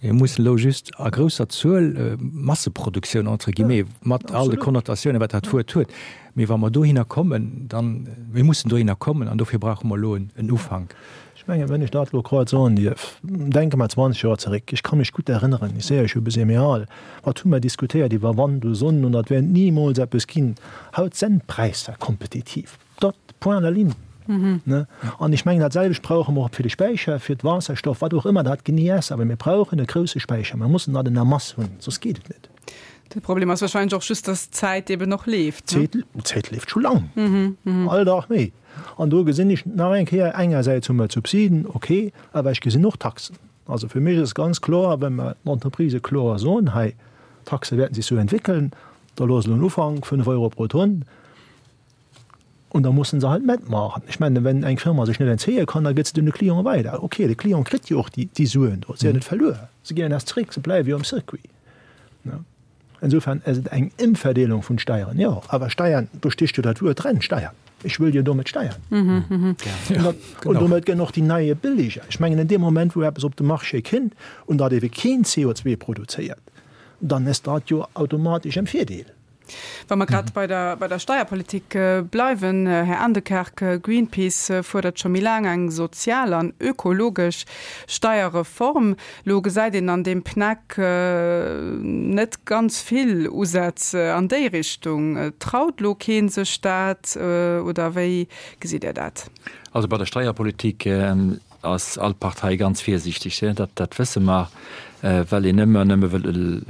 Mir mussen elo just a grousser Zuel, Masseproduktioun entre guillemets, mat all de Konnotatiounen, wat dat Wuert huet, mee wa mer dohinner kommen, dann, mir mussen dohinner kommen an dofir brauche mer elo en Ufank. Ech mengen, wenn ech dat elo grad soen dierf, denke mer 20 Joer zeréck, ech ka mech gutt erënneren, ech sehe, ech hu e bëssi méi al, wat hu mer diskutéiert iwwer Wand u Sonn und dat wäert nimools eppes ginn. Haut senn d'Präisser kompetitiv, dot, point à la ligne. Ne? An ech mengen, dat selwecht brauche mer och fir de Späicher, fir d'Waasserstoff, wat och ëmmer dat genee ass, awer mir brauchen e grouse Späicher, mer mussen dat en la masse hunn, soss geet et net. De Problem ass wahrscheinlech och just, dass d'Zäit eben och leeft. D'Zäit leeft scho lang, all Dag méi. An do gesinn ech nach eng Kéier, engersäits hu mer d'Subsiden, okay, awer ech gesinn och Taxen. Also fir mech ass ganz kloer, wa mer den Entreprisë kloer soen, hei, d'Taxe wäerten sech sou entwéckeln, da loosse elo en Ufank, 5 Euro pro Tonn, und da mussen se halt matmaachen. Ech mengen, wenn eng Firma sech net entzéie kann, da gëtt se den de Client weider. Okay, de Client kritt jo och déi Suen do, se sinn jo net verluer, se ginn net zeréck, se bleiwe jo am Circuit. Insofern ass et eng Emverdeelung vun Steieren, jo, awer Steiern, do stécht jo dat Wuert dran, Steiern. Ech wëll jo domat steiern. Und domat gënn och déi neie billiger. Ech mengen, in deem Moment, wou eppes op de Marché kënnt und dat ebe keen CO2 produzéiert, dann ass dat jo automatesch en Virdeel. Wa mer grad bei der, bei der Steierpolitik bleiwen, Här Aendekerk, Greenpeace fuerdert scho méi laang eng sozial an ökologesch Steierreform. Lo gesäit een an deem PNEC net ganz vill Usätz an déi Richtung. Traut lo kee sech dat oder wéi gesitt Dir dat? Also bei der Steierpolitik ass all Partei ganz virsiichteg, dat dat wësse mer, well een ëmmer nëmme wëll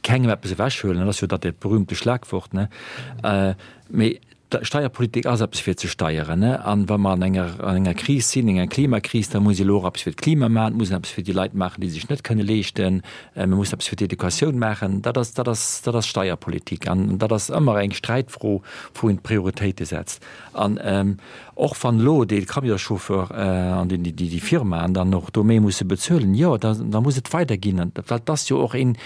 kengem eppes ewechhuelen. Dat ass jo dat dat berühmte Schlagwort, ne? Mee Steierpolitik ass eppes fir ze steieren, ne? An wa mer an enger an enger Kris sinn, enger Klimakris, da muss ee elo och eppes fir d'Klima maachen, et muss een eppes fir déi Leit maachen, déi sech net kënne leeschten, mir mussen eppes fir d'Educatioun maachen. Dat ass dat ass dat ass Steierpolitik an dat ass ëmmer eng Sträitfro, wou een d'Prioritéite setzt. An och wann elo dee Camionschauffeur an déi déi Firmaen dann och do méi musse bezuelen, jo, da da muss et weiderginn, well et ass jo och een,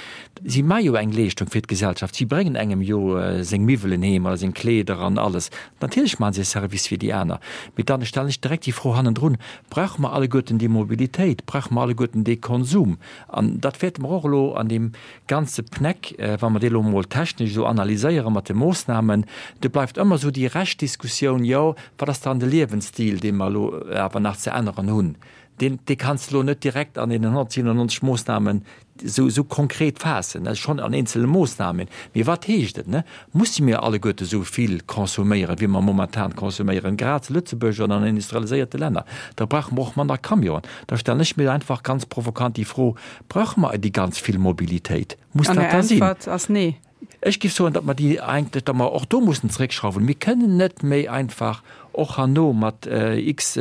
Si maache jo eng Leeschtung fir d'Gesellschaft. Si bréngen engem jo seng Miwwelen heem oder seng Kleeder an alles. Natierlech maache se e Service fir déi aner. Mee dann stellen ech direkt déi Fro hannendrun, Brauche mer alleguerten déi Mobilitéit? Brauche mer alleguerten dee Konsum? An dat wäerte mer och elo an deem ganze PNEC, wa mer dee elo emol technesch esou analyséiere mat de Moossnamen, do bleift ëmmer esou déi Reschtdiskussioun, jo, wat ass dann de Liewensstil, dee mer elo awer nach ze änneren hunn? Deen, dee kanns de elo net direkt an deenen 197 Moossnamen esou, esou konkret faassen, also schonn an eenzele Moossnamen. Mee wat heescht et, ne? Musse mir alleguerte esou vill consomméieren, wéi mer momentan consomméieren, grad zu Lëtzebuerg oder an industrialiséierte Länner? Da brauche mer och manner Camionen. Da stellen ech mir einfach ganz provokant déi Fro, Brauche mer déi ganz vill Mobilitéit? Muss dat da sinn? An Är Äntwert ass nee. Ech géif soen, datt mer déi eigentlech, datt mer och do mussen zréckschrauwen. Mir kënnen net méi einfach. och herno mat x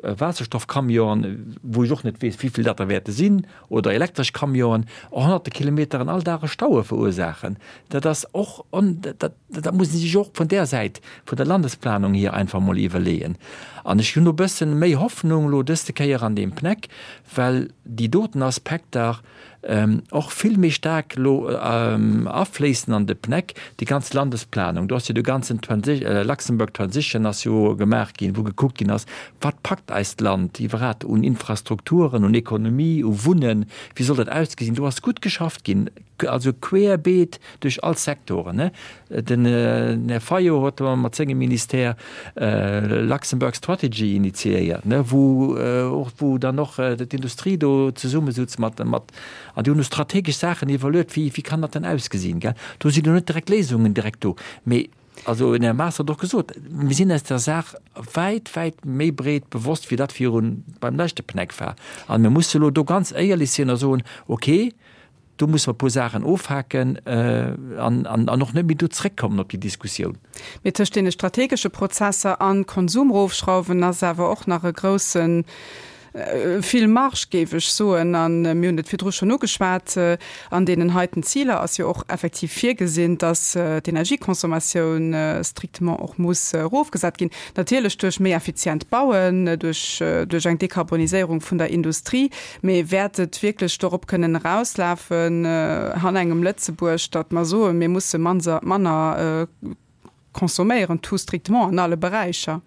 Waasserstoffcamionen, wou ech och net weess, wéi vill dat der wäerte sinn, oder elektresch Camionen, honnerte Kilometeren all Dag e Staue verursaachen. Dat ass och, dat dat muss ee sech och vun där Säit vun der Landesplanung hier einfach emol iwwerleeën. An ech hunn e bëssen méi Hoffnung elo dëste Kéier an deem PNEC, well déi doten Aspekter och vill méi staark elo afléissen an de PNEC, déi ganz Landesplanung. Do ass jo de ganzen Luxembourg Transition ass jo gemaach ginn, wou gekuckt ginn ass, wat packt eist Land iwwerhat un Infrastrukturen, un Ekonomie, u Wunnen, wéi soll dat ausgesinn. Do ass gutt geschafft ginn, also querbeet duerch all Sektoren. Den Här Fayot huet mat sengem Ministère Luxembourg Strategy initiéiert, wou och, wou dann och d'Industrie do zesummesutz mat, mat, an déi hunn do strategesch Saachen iwwerluet, wéi, wéi kann dat dann ausgesinn, gell. Do sinn elo net direkt Léisungen direkt do, mee also den Här Maas hat och gesot, mir sinn eis der Saach wäit, wäit méi breet bewosst, wéi dat virun beim leschte PNEC war. A mir musse elo do ganz éierlech sinn a soen, okay, Do musse mer e puer Saachen ofhaken an och net méi do zréckkommen op déi Diskussioun. Mee tëscht deene strategesche Prozesser an Konsumrofschrauwen ass awer och nach e groussen, vill Marge, géif ech soen. A mir hunn et virdru schonn ugeschwat, an deenen heiten Ziler ass jo och effektiv virgesinn, dass d'Energieconsommatioun strictement och muss erofgesat ginn, natierlech duerch méi effizient Bauen, duerch eng Dekarboniséierung vun der Industrie. Mee wäert et wierklech dorop kënnen erauslafen han engem Lëtzebuerg, datt mer soen, mir musse manner consomméieren, tout strictement an alle Beräicher?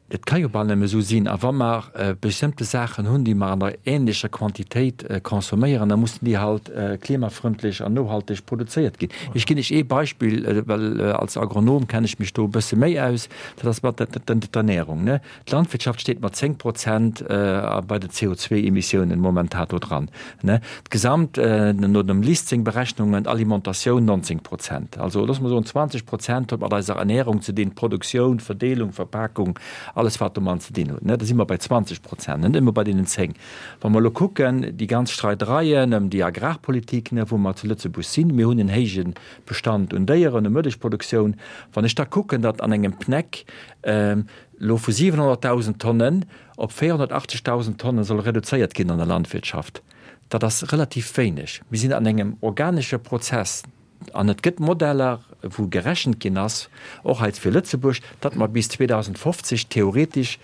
Et ka jo bal nëmme esou sinn. A wa mer bestëmmte Saachen hunn, déi mer an der ähnlecher Quantitéit consomméieren, da mussen déi halt klimafrëndlech an nohalteg produzéiert ginn. Ech ginn lech ee Beispill, well als Agronom kenne ech mech do e bësse méi aus, dat ass mat der Ernährung. D'Landwirtschaft steet mat 10 Prozent bei den CO2-Emissiounen momentan do dran. D'Gesamt, no dem LIST seng Berechnungen, d'Alimentatioun 19 Prozent. Also loosse mer soen, 20 Prozent huet mat eiser Ernährung ze dinn, Produktioun, Verdeelung, Verpakung, alles wat domat ze dinn huet. Da si mer bei 20 Prozent, net nëmme bei deenen 10. Wa mer elo kucken, déi ganz Streidereien ëm déi Agrarpolitik, wou mer zu Lëtzebuerg sinn, mir hunn en héije Bestand un Déieren, u Mëllechproduktioun, wann ech da kucken, datt an engem PNEC elo vu 700.000 Tonnen op 480.000 Tonnen soll reduzéiert ginn an der Landwirtschaft, dat ass relativ wéineg. Mir sinn an engem organesche Prozess an et gëtt Modeller, wou gerechent ginn ass, och hei fir Lëtzebuerg, datt mer bis 2050 theoretesch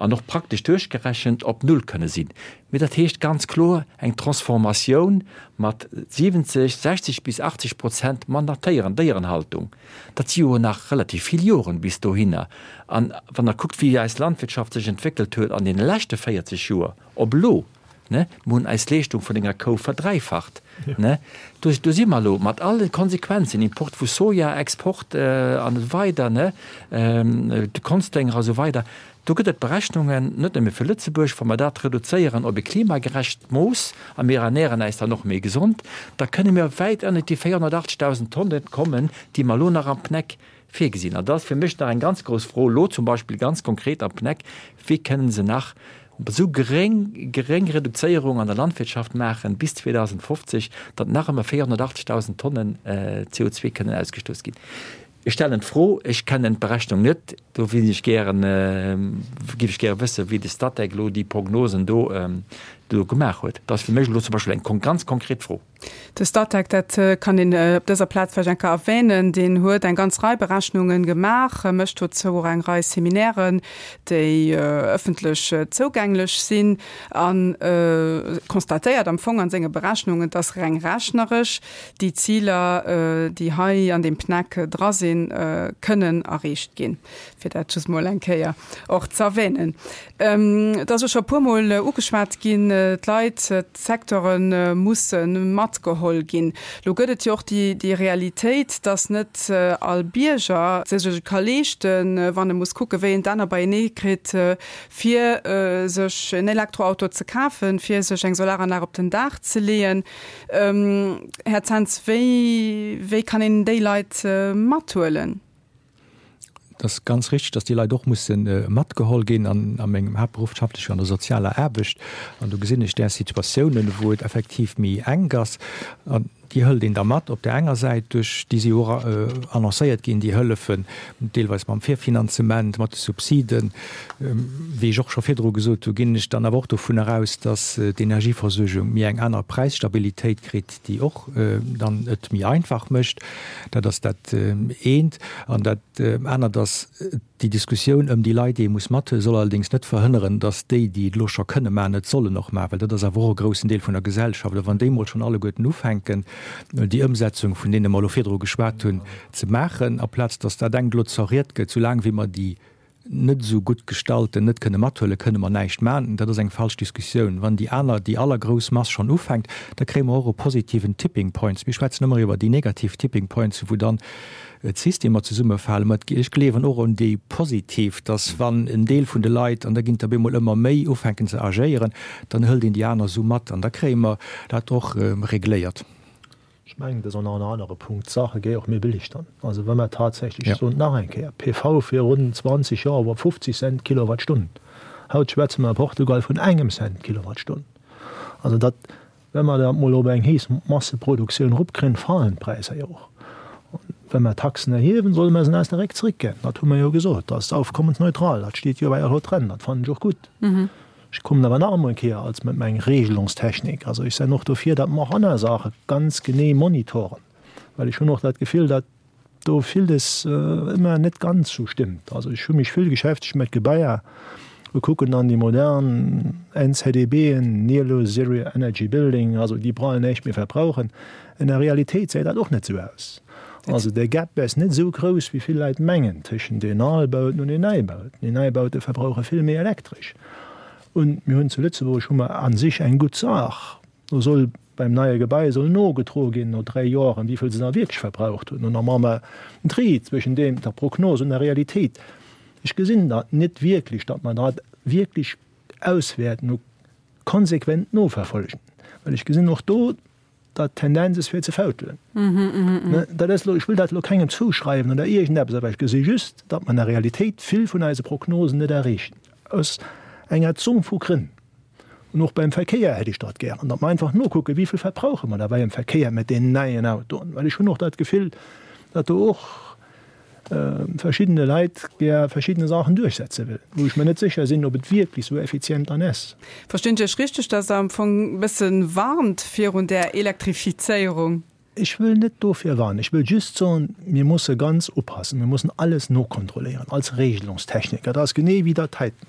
an och praktesch duerchgerechent op Null kënne sinn. Mee dat heescht ganz kloer eng Transformatioun mat 70, 60 bis 80 Prozent manner Téieren, Déierenhaltung. Dat si jo nach relativ vill Joren bis dohinner. An wann Der kuckt, wéi eis Landwirtschaft sech entwéckelt huet an deene leschte 40 Joer op elo, ne, mir hunn eis Leeschtung vun enger Kou verdräifacht, ne, do, do si mer elo mat alle Konsequenzen, Import vu Soja, Export an esou weider, ne, de Konsdénger a sou weider. Do gëtt et Berechnungen, net nëmme fir Lëtzebuerg, wa mer dat reduzéieren op e klimagerecht Mooss a mir ernären äis dann och méi gesond, da kënne mir wäit ënnert déi 480.000 Tonnen kommen, déi mer elo nach am PNEC virgesinn. An dat ass fir mech nach eng ganz grouss Fro elo zum Beispill ganz konkret am PNEC, Wéi kënnen se nach esou geréng, geréng Reduzéierung an der Landwirtschaft maachen bis 2050, datt nach ëmmer 480.000 Tonnen CO2 kënnen ausgestouss ginn? Ech stellen d'Fro, ech kennen d'Berechnung net, do wéilt ech gären, géif ech gäre wëssen, wéi de Statec elo déi Prognosen do do gemaach huet. Dat ass fir mech elo zum Beispill eng ganz konkret Fro. De Statec, dat kann een op dëser Plaz vläicht eng Kéier erwänen, deen huet eng ganz Rei Berechnungen gemaach, mécht dozou och eng Rei Seminären, déi ëffentlech zougänglech sinn, a constatéiert am Fong a senge Berechnungen, dass reng rechneresch déi Ziler, déi hei an deem PNEC dra sinn, kënnen erreecht ginn, fir dat just mol eng Kéier och ze erwänen. Et ass jo scho e puermol ugeschwat ginn, d'Leit, d'Secteure musse matgeholl ginn. Lo gëtt et jo och déi Realitéit, dass net all Bierger sech et ka leeschten, wann e muss kucken, wéi en d'Enner beienee kritt, fir sech en Elektroauto ze kafen, fir sech eng Solaranlag op den Daach ze leeën. Här Zens, wéi, wéi kann een déi Leit mathuelen? Et ass ganz richtig, dass déi Leit och musse matgeholl ginn. An a mengem Haaptberuff schaffen ech jo an der sozialer Aarbecht an do gesinn ech där Situatiounen, wou et effektiv méi enk ass. An. Déi hëlt een da mat op där enger Säit duerch, déi si jo och annoncéiert ginn, déi Hëllefen, deelweis mam Virfinanzement, mat de Subsiden. Wéi ech och scho virdru gesot hu ginn ech dann awer och dovunner aus, datt d'Energieversuergung méi eng aner Präisstabilitéit kritt, déi och dann et méi einfach mécht. Dat ass dat eent. An dat anert ass, Déi Diskussioun ëm déi Leit, déi ee muss mathuelen, soll allerdéngs net verhënneren, datt déi, déi et elo scho kënne maachen, et sollen och maachen, well dat ass awer och e groussen Deel vun der Gesellschaft. A wann déi emol schonn alleguerten ufänken, déi Ëmsetzung, vun deene mer elo virdru geschwat hunn, ze maachen, aplaz datt dat engt elo zerriet gëtt, soulaang wéi mer déi net esou gutt Gestallten net kënne mathuelen, kënne mer näischt maachen. Dat ass eng falsch Diskussioun. Wann déi aner, déi allergrouss Mass schonn ufänkt, da kréie mer och e positiven Tipping Points. Mir schwätzen ëmmer iwwer déi negativ Tipping Points, wou dann d'Systemer zesummefalen. Mä ech gleewen och un déi positiv, dass wann en Deel vun de Leit, an da ginn der bemol ëmmer méi, ufänken ze agéieren, dann hëlt een déi aner esou mat an da kréie mer dat och regléiert. Ech mengen, dat ass och nach en anere Punkt, d'Saache géi och méi billig dann. Also wa mer tatsächlech, ech soen et nach eng Kéier, PV virun 20 Joer war 50 Cent d'Kilowattstonn, haut schwätze mer a Portugal vun engem Cent d'Kilowattstonn. Also dat Wa mer dat mol op eng hees Masseproduktioun eropkréien, falen d'Präisser jo och. Wa mer Taxen erhiewen, solle mer se aus der Réck zréckginn. Dat hu mer jo gesot. Dat ass aufkommensneutral. Dat steet jo bei der loi dran. Dat fannen ech och gutt. Ech kommen awer nach emol eng Kéier als mat meng Regelungstechnik. Also ech senn och dofir, datt mer och aner Saache ganz genee monitoren, well ech hunn och dat Gefill, datt do villes ëmmer net ganz sou stimmt. Also ech hu mech vill geschäftegt mat Gebaier, wir kucken dann déi modern NZEBen, Near Zero Energy Building, also déi brauchen näischt méi verbrauchen. In der Realitéit säit dat och net sou aus. Also de Gap ass net sou grouss wéi vill Leit mengen tëschent den Albauten un den Neibauten. Déi Neibaute verbrauche vill méi Elektresch. Un mir hunn zu Lëtzebuerg hu mer a sech eng gutt Saach. Do soll beim neie Gebai soll nogedroe ginn no 3 Joren, wéi vill se da wierklech verbraucht hunn. An da maache mer en Tri zwëschen deem, der Prognos und der Realitéit. Ech gesinn dat net wierklech, datt mer dat wierklech auswäerten u konsequent noverfolgen, well ech gesinn och do, datt d'Tendenz ass fir ze fautelen. Dat ass elo, ech wëll dat elo kengem zouschreiwen oder iergendeppes, awer ech gesi just, datt mer an der Realitéit vill vun eise Prognosen net erreechen, aus enger Zomm vu Grënn. An och beim Verkéier hätt ech dat gären, datt mer einfach nokucken, wéi vill verbrauche mer da beim Verkéier mat deenen neien Autoen. Well ech hunn och dat Gefill, datt do och verschiddene Leit gär verschiddene Saachen duerchsetze wëllen, wou ech mer net sécher sinn, ob et wierklech esou effizient dann ass. Verstinn ech Iech richteg, datt Der am Fong e bësse warnt virun där Elektrifizéierung? Ech wëll net dofir warnen. Ech wëll just soen, mir musse ganz oppassen, mir mussen alles nokontrolléieren als Regelungstechniker. Dat ass genee wéi dat heiten.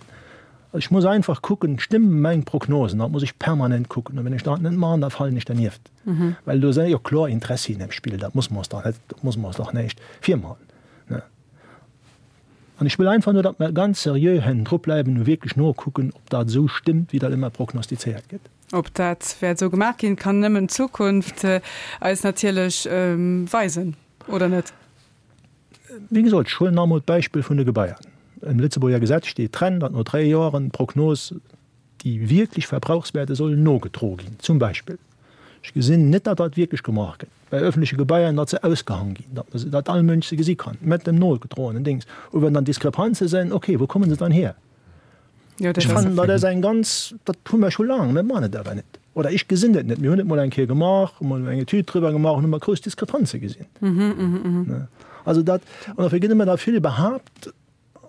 Ech muss einfach kucken, stëmmen meng Prognosen? Dat muss ech permanent kucken. A wann ech dat net maachen, da falen ech dernieft. Well do si jo kloer Interessien am Spill. Dat muss mer ons dach net, dat muss mer ons dach näischt virmachen. An ech wëll einfach nur, datt mer ganz seriö hannendru bleiwen a wierklech nokucken, ob dat esou stëmmt, wéi dat ëmmer prognostizéiert gëtt. Ob dat wäert esou gemaach ginn, kann nëmmen d'Zukunft eis natierlech weisen, oder net? Wéi gesot, ech huelen nach emol d'Beispill vun de Gebaier. Am Lëtzebuerger Gesetz steet dran, datt no dräi Joren d'Prognos, déi wierklech Verbrauchswäerte sollen nogedroe ginn, zum Beispill. Ech gesinn net, datt dat wierklech gemaach gëtt bei öffentleche Gebaier, datt se ausgehang ginn, datt se, datt all Mënsch se gesi kann, mat dem nogedroenen Dings. U wann dann Diskrepanze sinn, okay, wou kommen se dann hier? Ech fannen, dat ass eng ganz, dat hu mer scho laang, mir maachen et awer net. Oder ech gesinn et net. Mir hunn et mol eng Kéier gemaach, hu mol eng Etüd driwwer gemaach an hu mer grouss Diskrepanze gesinn. Also dat, an dofir gëtt ëmmer da vill behaapt,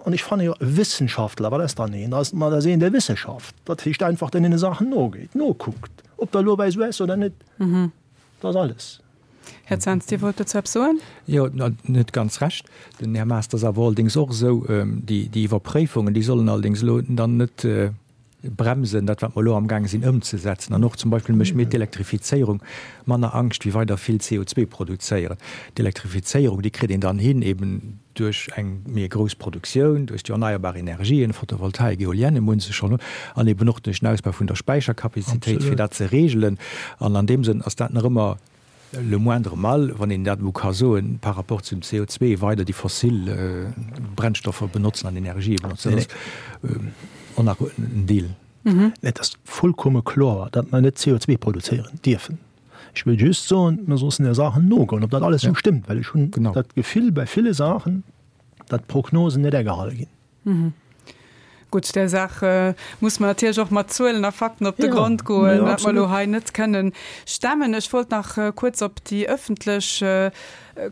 an ech fanne jo, e Wissenschaftler, wat ass dann een? Dat ass, ma dat ass een, dee Wissenschaft, dat heescht einfach, deen deene Saachen nogeet, nokuckt, ob dat elo esou ass oder net. Dat ass alles. Här Zens, Dir wollt dozou eppes soen? Jo, net ganz Recht. Den Här Maas, dat ass awer allerdéngs och esou, déi Iwwerpréifungen, déi sollen allerdéngs elo dann net bremsen, dat wat mer elo amgaange sinn ëmzesetzen. An och zum Beispill mécht mir d'Elektrifizéierung manner Angscht wéi weider vill CO2 produzéieren. D'Elektrifizéierung, déi kritt een dann hin eben duerch eng méi grouss Produktioun, duerch déi erneierbar Energien, Photovoltaik, Eolienne munn se schonn, an eben och duerch den Ausbau vun der Späicherkapazitéit, fir dat ze regelen. An an deem Sënn ass dat nach ëmmer le moindre mal, wann een dat elo ka soen, par rapport zum CO2, weider déi fossil Brennstoffer benotzen an Energië benotzen. Dat ass och nach en Deel. Et ass vollkomme kloer, datt mer net CO2 produzéieren dierfen. Ech wëll just soen, mer sossen der Saachen nogoen, ob dat alles esou stëmmt, well ech hunn dat Gefill bei ville Saachen, datt d'Prognosen net agehale ginn. Gutt, där Saach muss mer natierlech och mat Zuelen a Fakten op de Grond goen, wat mer elo hei net kënnen stemmen. Ech wollt nach kuerz op déi ëffentlech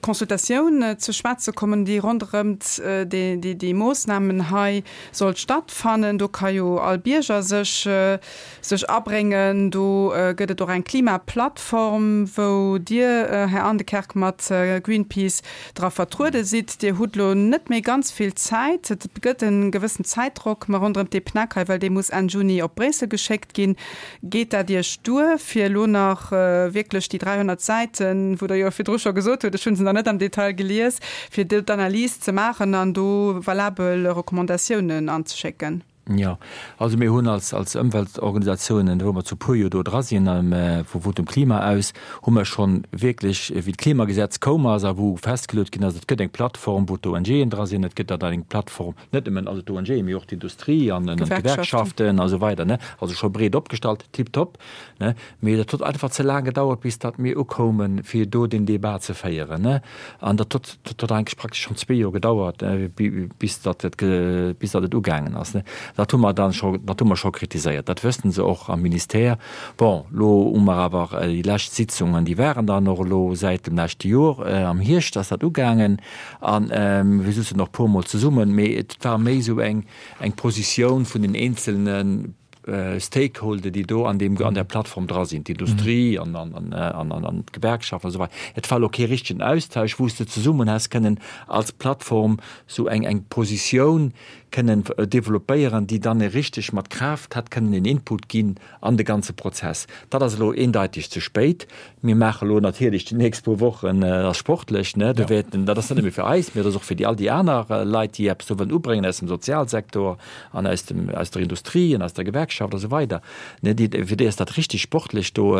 Consultatioun ze schwätze kommen, déi ronderëmt déi Moossnamen hei sollt stattfannen. Do ka jo all Bierger sech sech abréngen. Do gëtt et och eng Klimaplattform, wou Dir, Här Aendekerk, mat Greenpeace dra vertruede sidd. Dir hutt elo net méi ganz vill Zäit. Et gëtt e gewëssen Zäitdrock ma ronderëm dee PNAC hei, well dee muss Enn Juni op Bréissel geschéckt ginn. Geet dat Iech duer, fir elo nach wierklech déi 300 Säiten, wou Der jo virdru scho gesot hutt, ech hu se nach net am Detail gelies, fir do d'Analys ze maachen an do valabel Recommandatiounen anzeschécken? Jo, also mir hunn als, als Ëmweltorganisatiounen, wou mer zu puer jo do dra sinn, vu Votum Klima aus, hu mer schonn wierklech, wéi d'Klimagesetz koum ass a wou festgeluet ginn ass, et gëtt eng Plattform, wou d'ONGen dra sinn, et gëtt dann eng Plattform, net nëmmen also d'ONGen, mee och d'Industrie an d'Gewerkschaften a sou weider, ne, also scho breet opgestallt, tiptop, ne. Mee dat huet einfach ze laang gedauert, bis datt mir ukoumen, fir do den Débat ze féieren, ne. An dat huet, dat huet eigentlech praktesch schonn zwee Joer gedauert, bis datt et, bis datt et ugaangen ass, ne. Dat hu mer dann scho, dat hu mer scho kritiséiert. Dat wëssten se och am Ministère. Bon, elo hu mer awer déi lescht Sitzungen, déi waren dann och elo säit dem leschte Joer, am Hierscht ass dat ugaangen. A mir souzen och puermol zesummen, mee et war méi esou eng, eng Positioun vun den eenzelne Stakeholder, déi do an deem, an där Plattform dra sinn, d'Industrie an, an, an, an, an, an d'Gewerkschaften a sou weider. Et war elo kee richtegen Austausch, wou s de zesummen häss kënnen als Plattform sou eng, eng Positioun kënnen developpéieren, déi dann richteg mat Kraaft hätt kënnen en Input ginn an de ganze Prozess. Dat ass elo eendeiteg ze spéit. Mir maache elo natierlech déi nächst puer Wochen, dat ass sportlech, ne, do wäerten, dat ass net nëmme fir eis, mee dat ass och fir déi all déi aner Leit, déi eppes do wëllen ubréngen aus dem Sozialsektor an aus dem, aus der Industrie an aus der Gewerkschaft a sou weider, ne, déi, fir déi ass dat richtig sportlech do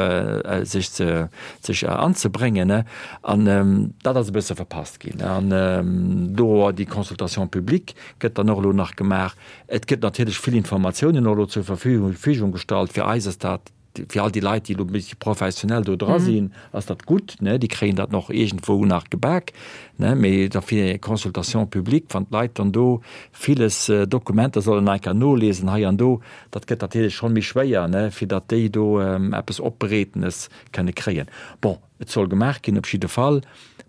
sech ze, sech anzebréngen, ne. An dat ass e bësse verpasst ginn. An do déi Consultation publique gëtt dann och elo nach gemaach. Et gëtt natierlech vill Informatiounen och elo zur Verfügung gestallt. Fir eis ass dat Fir all déi Leit, déi elo e bëssche professionell do dra sinn, ass dat gutt, ne, déi kréien dat nach iergendwou nach gebak, ne, mee da fir eng Consultation publique, wann d'Leit dann do villes Dokumenter sollen nach eng Kéier noliesen hei an do, dat gëtt natierlech schonn méi schwéier, ne, fir datt déi do eppes Opbereetenes kënne kréien. Bon, Et soll gemaach ginn, op jidde Fall.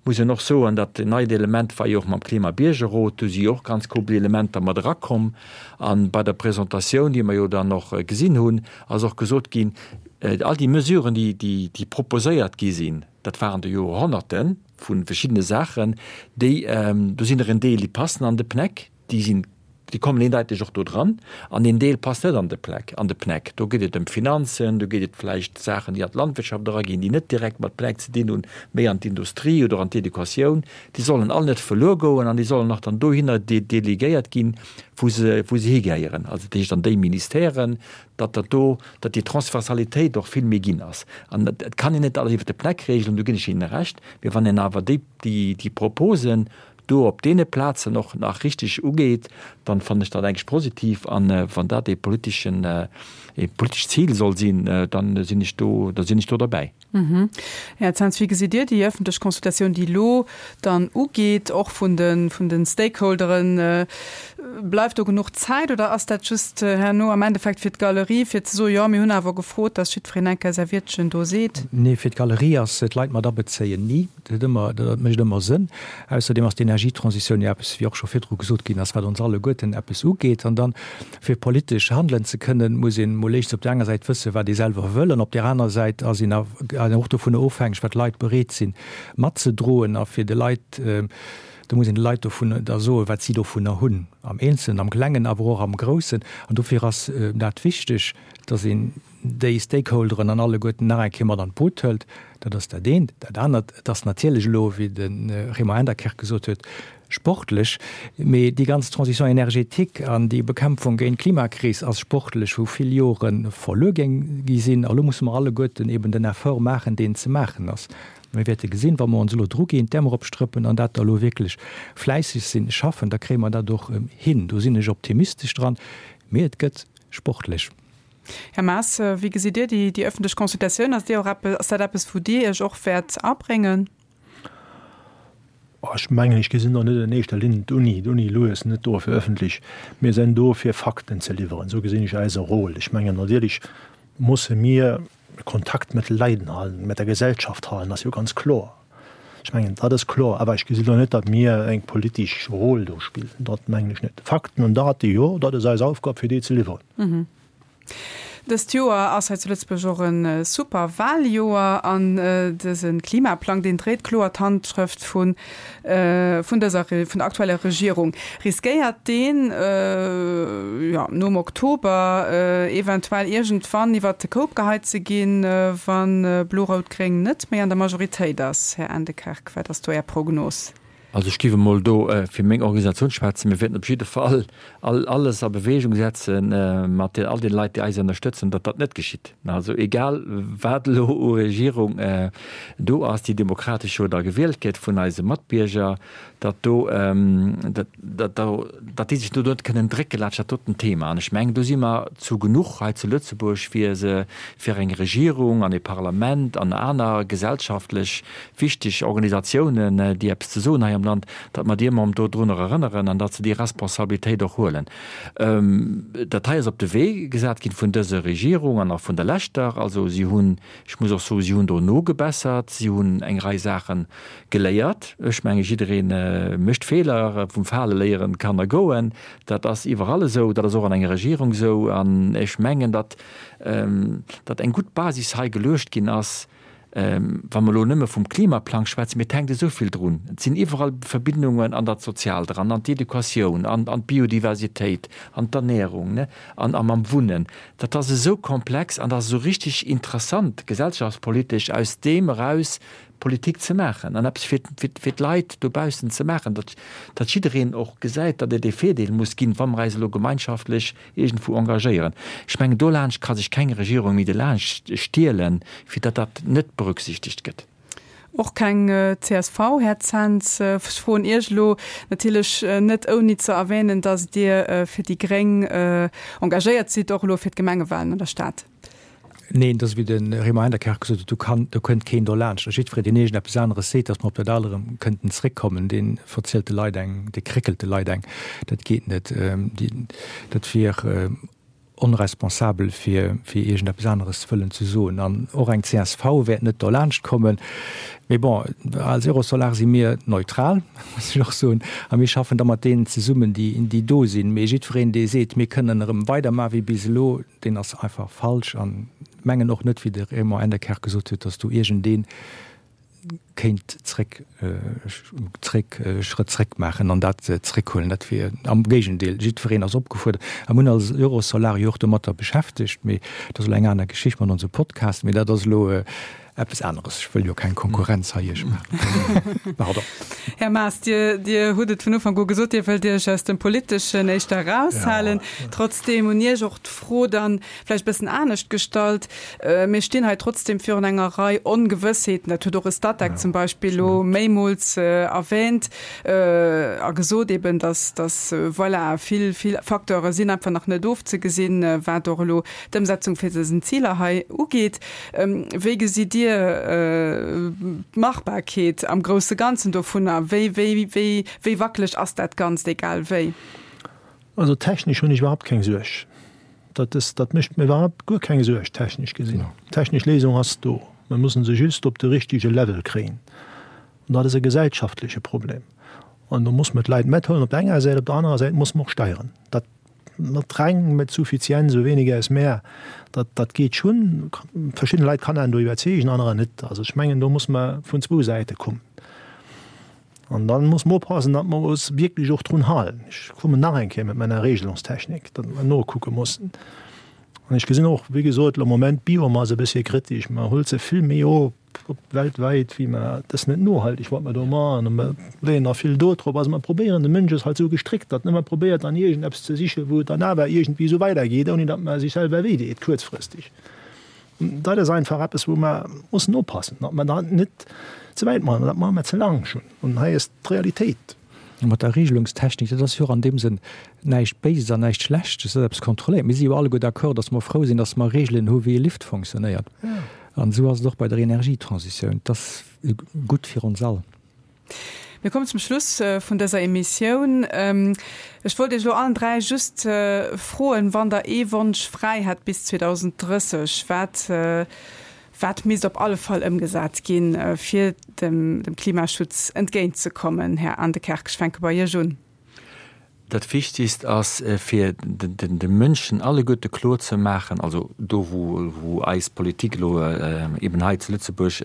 Muss een och soen, dat neit Element war jo och mam Klimabiergerrot, do si jo och ganz couple Elementer mat erakomm. A bei der Presentatioun, déi mer jo dann och gesinn hunn, ass och gesot ginn, all déi Mesuren, déi, déi proposéiert gi sinn, dat waren der jo Honnerte vu verschiddene Saachen, déi, do sinn der en Deel, déi passen an de PNEC, Déi sinn, déi kommen eendeiteg och do dran. An een Deel passt net an de Plec, an de PNEC. Do geet et ëm d'Finanzen, do geet et vläicht Saachen, déi an d'Landwirtschaft eraginn, déi net direkt mat PNEC ze dinn hunn, méi an d'Industrie oder an d'Educatioun. Déi sollen all net verluer goen an déi sollen och dann dohinner delegéiert ginn, wou se, wou se higehéieren, also dat heescht an déi Ministèren, datt dat do, datt déi Transversalitéit och vill méi ginn ass. An et kann een net alles iwwert de PNEC regelen, do ginn ech Ihnen Recht, mee wann een awer déi, déi, déi Proposen do op deene Plazen och nach richteg ugeet, dann fannen ech dat eigentlech positiv. An wann dat ee politeschen, ee politescht Zil soll sinn, dann sinn ech do, da sinn ech do derbäi. Här Zens, wéi gesitt Dir déi ëffentlech Consultatioun, déi elo dann ugeet, och vun de, vun de Stakeholderen? Bleift do genuch Zäit oder ass dat just herno am Endeffekt fir d'Galerie, fir ze soen, jo mir hunn awer gefrot, datt jiddwereen eng Kéier säi Wiertchen do seet? Nee, fir d'Galerie ass d'Leit mat abezéien ni. Dat huet ëmmer, dat mécht ëmmer Sënn. Ausserdeem ass d'Energietransitioun jo eppes, wéi och scho virdru gesot ginn ass, wat ons alleguerten eppes ugeet. An dann, fir politesch handelen ze kënnen, muss een emol éischtens op där enger Säit wëssen, wat ee selwer wëll, an op där aner Säit ass een och dovunner ofhängeg, wat d'Leit bereet sinn matzedroen. A fir de Leit, do muss een de Leit dovun da soen, wat si dovunner hunn, am Eenzelnen, am Klengen, awer och am Groussen. An dofir ass dat wichteg, dass een déi Stakeholderen an alleguerten nach eng Kéier mat an d'Boot hëlt. Dat ass dat eent. Dat anert, et ass natierlech elo, wéi de Raymond Enderkerk gesot huet, sportlech, mee déi ganz Transition énergétique an déi Bekämpfung géint d'Klimakris ass sportlech, wou vill Jore verluer géing gi sinn. A lo musse mer alleguerten eben den Effort maachen, deen ze maachen ass. Mir wäerte gesinn, wa mer ons elo druginn, d'Äerm eropstrëppen an dat da elo wierklech fläisseg sinn, schaffen, da kréie mer dat och hin. Do sinn ech optimistesch dran, mee et gëtt sportlech. Här Maas, wéi gesitt Dir déi ëffentlech Consultatioun? Ass Dir och eppes, ass dat eppes, wou Dir Iech och wäert abréngen? Ech mengen, ech gesinn do net an éischter Linn d'Uni. D'Uni elo ass net do fir öffentlech, mir sinn do fir Fakten ze liwweren. Esou gesinn ech eise Rôle. Ech mengen, natierlech musse mir Kontakt mat de Leiden halen, mat der Gesellschaft halen, ass jo ganz kloer. Ech mengen, dat ass kloer. Awer ech gesinn elo net, datt mir eng politesch Rôle do spillen. Dat mengen ech net. Fakten an Date, jo, dat ass eis Aufgab, fir déi ze liwweren. Dëst Joer ass hei zu Lëtzebuerg och e super Wahljoer an dëse Klimaplang, deen dréit kloer d'Handschrëft vun vun dëser vun der aktueller Regierung. Riskéiert deen, jo, nom Oktober eventuell iergendwann iwwert de Koup geheit ze ginn, wa Blo-Rout-Gréng net méi an der Majoritéit ass? Här Endekerk, wat ass do Är Prognos? Also ech géif emol do fir meng Organisatioun schwätzen. Mir wäerten op jidde Fall alles a Bewegung setze mat all den Leit, déi eis ënnerstëtzen, datt dat net geschitt. Also egal wat elo u Regierung do ass, déi demokratesch jo da gewielt gëtt vun eise Matbierger, datt do, datt datt déi sech do net kënnen drécke laanscht dat doten Thema. An ech mengen, do si mer zu genuch hei zu Lëtzebuerg, fir se, fir eng Regierung an e Parlament an aner gesellschaftlech wichteg Organisatiounen, déi eppes ze soen hei am Land, datt mer déi ëmmer erëm dodrunner erënneren an datt se déi Responsabilitéit och huelen. Dat hei ass op de Wee gesat ginn vun dëser Regierung an och vun der leschter. Also si hunn, ech muss och soen, si hunn do nogebessert, si hunn eng Rei Saache geléiert. Ech menge jidderee mécht Feeler, vum Fale léieren d'Kanner goen. Dat ass iwwerall esou, dat ass och an enger Regierung esou. An ech mengen, datt datt eng gutt Basis hei geluecht ginn ass, wa mer elo nëmme vum Klimaplang schwätzen, mee et hänkt esou vill drun. Et sinn iwwerall Verbindungen an dat Soziaalt eran, an d'Educatioun, an an d'Biodiversitéit, an d'Ernährung, ne, an a mam Wunnen. Dat ass esou komplex an dat ass esou richtig interessant gesellschaftspolitesch aus deem eraus Politik ze maachen an eppes fir fir d'Leit dobaussen ze maachen, datt datt jiddereen och gesäit, datt et ee Virdeel muss ginn, wa mer eis elo gemeinschaftlech iergendwou engagéieren. Ech mengen, dolaanscht ka sech keng Regierung méi delaanscht stielen, fir datt dat net berücksichtegt gëtt. Och keng csv, Här Zens. Ech froen Iech elo natierlech net ouni ze erwänen, datt Dir fir déi gréng engagéiert sidd, och elo fir d'Gemengewahlen an der Stad. Neen, et ass wéi de Raymond Enderkerk gesot huet, do kann, do kënnt keen dolaanscht. A jiddweree, deen iergendeppes aneres seet, datt mer op dat al erëm kënnten zréckkommen, dee verzielt de Leit eng, dee kréckelt de Leit eng. Dat geet net. Dat wier onresponsabel, fir, fir iergendeppes aneres wëllen ze soen. An och eng csv wäert net dolaanscht kommen. Mee bon, als Eurosolar si mir neutral, muss ech och soen, a mir schaffen da mat deenen zesummen, déi, déi do sinn. Mee jiddwereen, dee seet, mir kënnen erëm weidermachen wéi bis elo, Deen ass einfach falsch an mengen och net, wéi de Raymond Endekerk gesot huet, datt do iergendee kéint zréck, zréck, Schrëtt zréck maachen an dat zréckhuelen. Dat wier am Géigendeel, jiddwereen ass opgefuerdert. A mir hunn als Eurosolar jo och domatter beschäftegt, mee dat ass elo eng aner Geschicht mat onsem Podcast, mee dat ass elo Eppes aneres, ech wëll jo keng Konkurrenz hei iech maachen. Pardon. Här Maas, Dir, Dir hutt et vun Ufank u gesot, Dir wëllt Iech aus dem Politeschen éischter eraushalen. Trotzdeem un Iech och d'Fro dann vläicht e bëssen anescht gestallt, Mir stinn hei trotzdeem virun enger Rei Ongewëssheeten, dat huet och e Statec zum Beispill elo méimools erwähnt a gesot eben, dass, dass, voilà, vill, vill Facteure sinn einfach nach net ofzegesinn, wat och elo d'Ëmsetzung fir dësen Ziler hei ugeet. Wéi gesitt Dir d'Machbarkeet am grousse Ganzen dovunner? Wéi, wéi, wéi, wéi wackeleg ass dat Ganzt, egal wéi? Also technesch hunn ech iwwerhaupt keng Suerg. Dat ass, dat mécht mir iwwerhaupt guer keng Suerg, technesch gesinn. D'technesch Léisung ass do. Mir mussen se just op de richtege Level kréien. An dat ass e gesellschaftleche Problem. An do muss mer d'Leit mathuelen op der enger Säit, op der anerer Säit muss mer och steieren. Dat Mat reng, mit Suffizienz, so weniger ist mehr, dat, dat geet schonn. Verschidden Leit kann een do iwwerzeegen, anerer net. Also ech mengen, do muss mer vun zwou Säite kommen. An dann muss mer oppassen, datt mer eis wierklech och drun halen. Ech kommen nach eng Kéier mat meiner Regelungstechnik, datt mer nokucke mussen. An ech gesinn och, wéi gesot, am Moment d'Biomass e bëssche kritesch. Mer hëlt se vill méi op. Weltwäit, wéi mer, dat ass net nohalteg, wat mer do maachen, a mer leeën nach vill do drop. Also mer probéieren, de Mënsch ass halt esou gestréckt, datt en ëmmer probéiert an iergendeppes ze sichen, wou et dann awer iergendwéi esou weidergeet, ouni datt mer sech selwer wéi deet kuerzfristeg. Dat ass einfach eppes, wou mer mussen oppassen, datt mer dat net ze wäit maachen. Dat maache mer ze laang schonn. An hei ass d'Realitéit. Mat der Regelungstechnik, dat ass jo och an deem Sënn näischt Béises an näischt Schlechtes, dat ass eppes kontrolléiert. Mir si jo alleguer d'accord, datt mer frou sinn, datt mer Regelen hu wéi e Lift fonctionnéiert. An esou ass et och bei der Energietransitioun. Et ass gutt fir ons all. Mir kommen zum Schluss vun dëser Emissioun. Ech wollt Iech elo allen 3 just froen, wann Der ee Wonsch fräi hätt bis 2030, wat, wat misst op alle Fall ëmgesat ginn, fir dem Klimaschutz entgéintzekommen? Här Aendekerk, ech fänke bei Iech un. Dat Wichtigst ass, fir de Mënschen alleguerte kloer ze maachen, also do wou eis Politik elo eben hei zu Lëtzebuerg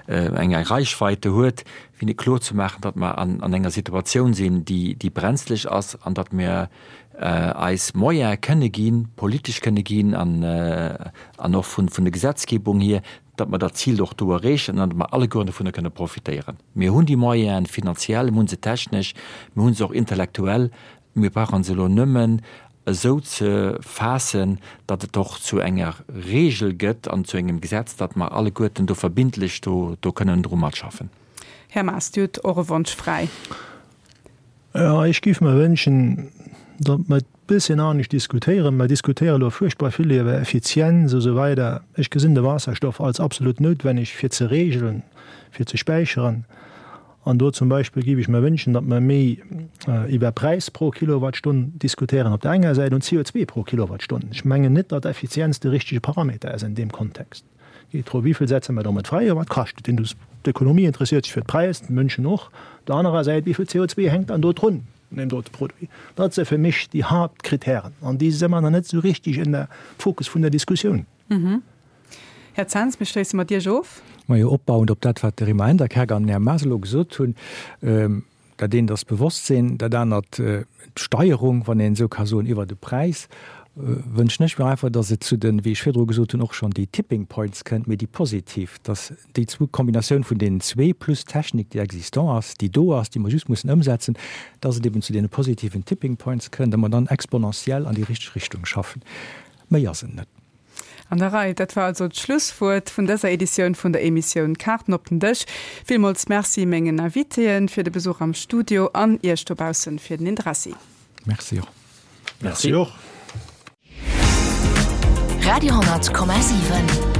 eng Reichweite huet, fir hinne kloer ze maachen, datt mer an enger Situatioun sinn, déi brenzlech ass an datt mir eis Moyene kënne ginn, politesch kënne ginn an och vun der Gesetzgebung hier, datt mer dat Zil och do erreechen an datt mer allegueren dovunner kënne profitéieren. Mir hunn déi Moyenen finanziell, mir hu se technesch, mir hu se och intellektuell. Mir brauche se elo nëmmen esou ze faassen, datt et och zu enger Regel gëtt an zu engem Gesetz, datt mer alleguerten do verbindlech do kënnen dru matschaffen. Här Maas, Dir hutt och e Wonsch fräi. Jo, ech géif mer wënschen, datt mer e bësschen anescht diskutéieren. Mer diskutéiere elo fuerchtbar vill iwwer Effizienz a sou weider. Ech gesinn de Waasserstoff als absolut noutwenneg fir ze regelen, fir ze späicheren. An do zum Beispill géif ech mer wënschen, datt mer méi iwwer Präis pro Kilowattstonn diskutéieren op der enger Säit an CO2 pro Kilowattstonn. Ech mengen net, datt Effizienz de richtege Parameter ass an deem Kontext. Et geet drëm, wéi vill setze mer domat fräi a wat kascht et. D'Ökonomie interesséiert sech fir d'Präis, d'Mënschen och. Op der anerer Säit, wéi vill CO2 hänkt dann do drun un deem dote Produit? Dat si fir mech déi Haaptkritären an déi si mer nach net esou richtig en der Fokus vun der Diskussioun. Här Zens, mir schléisse mat Iech of. Majo, opbauend op dat, wat de Raymond Enderkerk an den Här Maas elo gesot hunn, Dat eent ass d'Bewosstsinn, dat anert d'Steierung, wann een esou ka soen, iwwer de Präis. Wënschen ech mir einfach, datt et zu den, wéi ech virdru gesot hunn, och schonn déi Tipping Points kënnt, mee déi positiv, datt déi zwou, d'Kombinatioun vun deenen zwee plus d'Technik, déi existant ass, déi do ass, déi mer just mussen ëmsetzen, datt et eben zu deene positiven Tipping Points kënnt a mer dann exponentiell an déi richteg Richtung schaffen. Méi ass et net. An der Rei. Dat war also d'Schlusswuert vun dëser Editioun vun der Emissioun Kaarten op den Dësch. Villmools Merci mengen Invitéen fir de Besuch am Studio an Iech dobaussen fir den Interessi. Merci och. Merci och. Radio 10,7.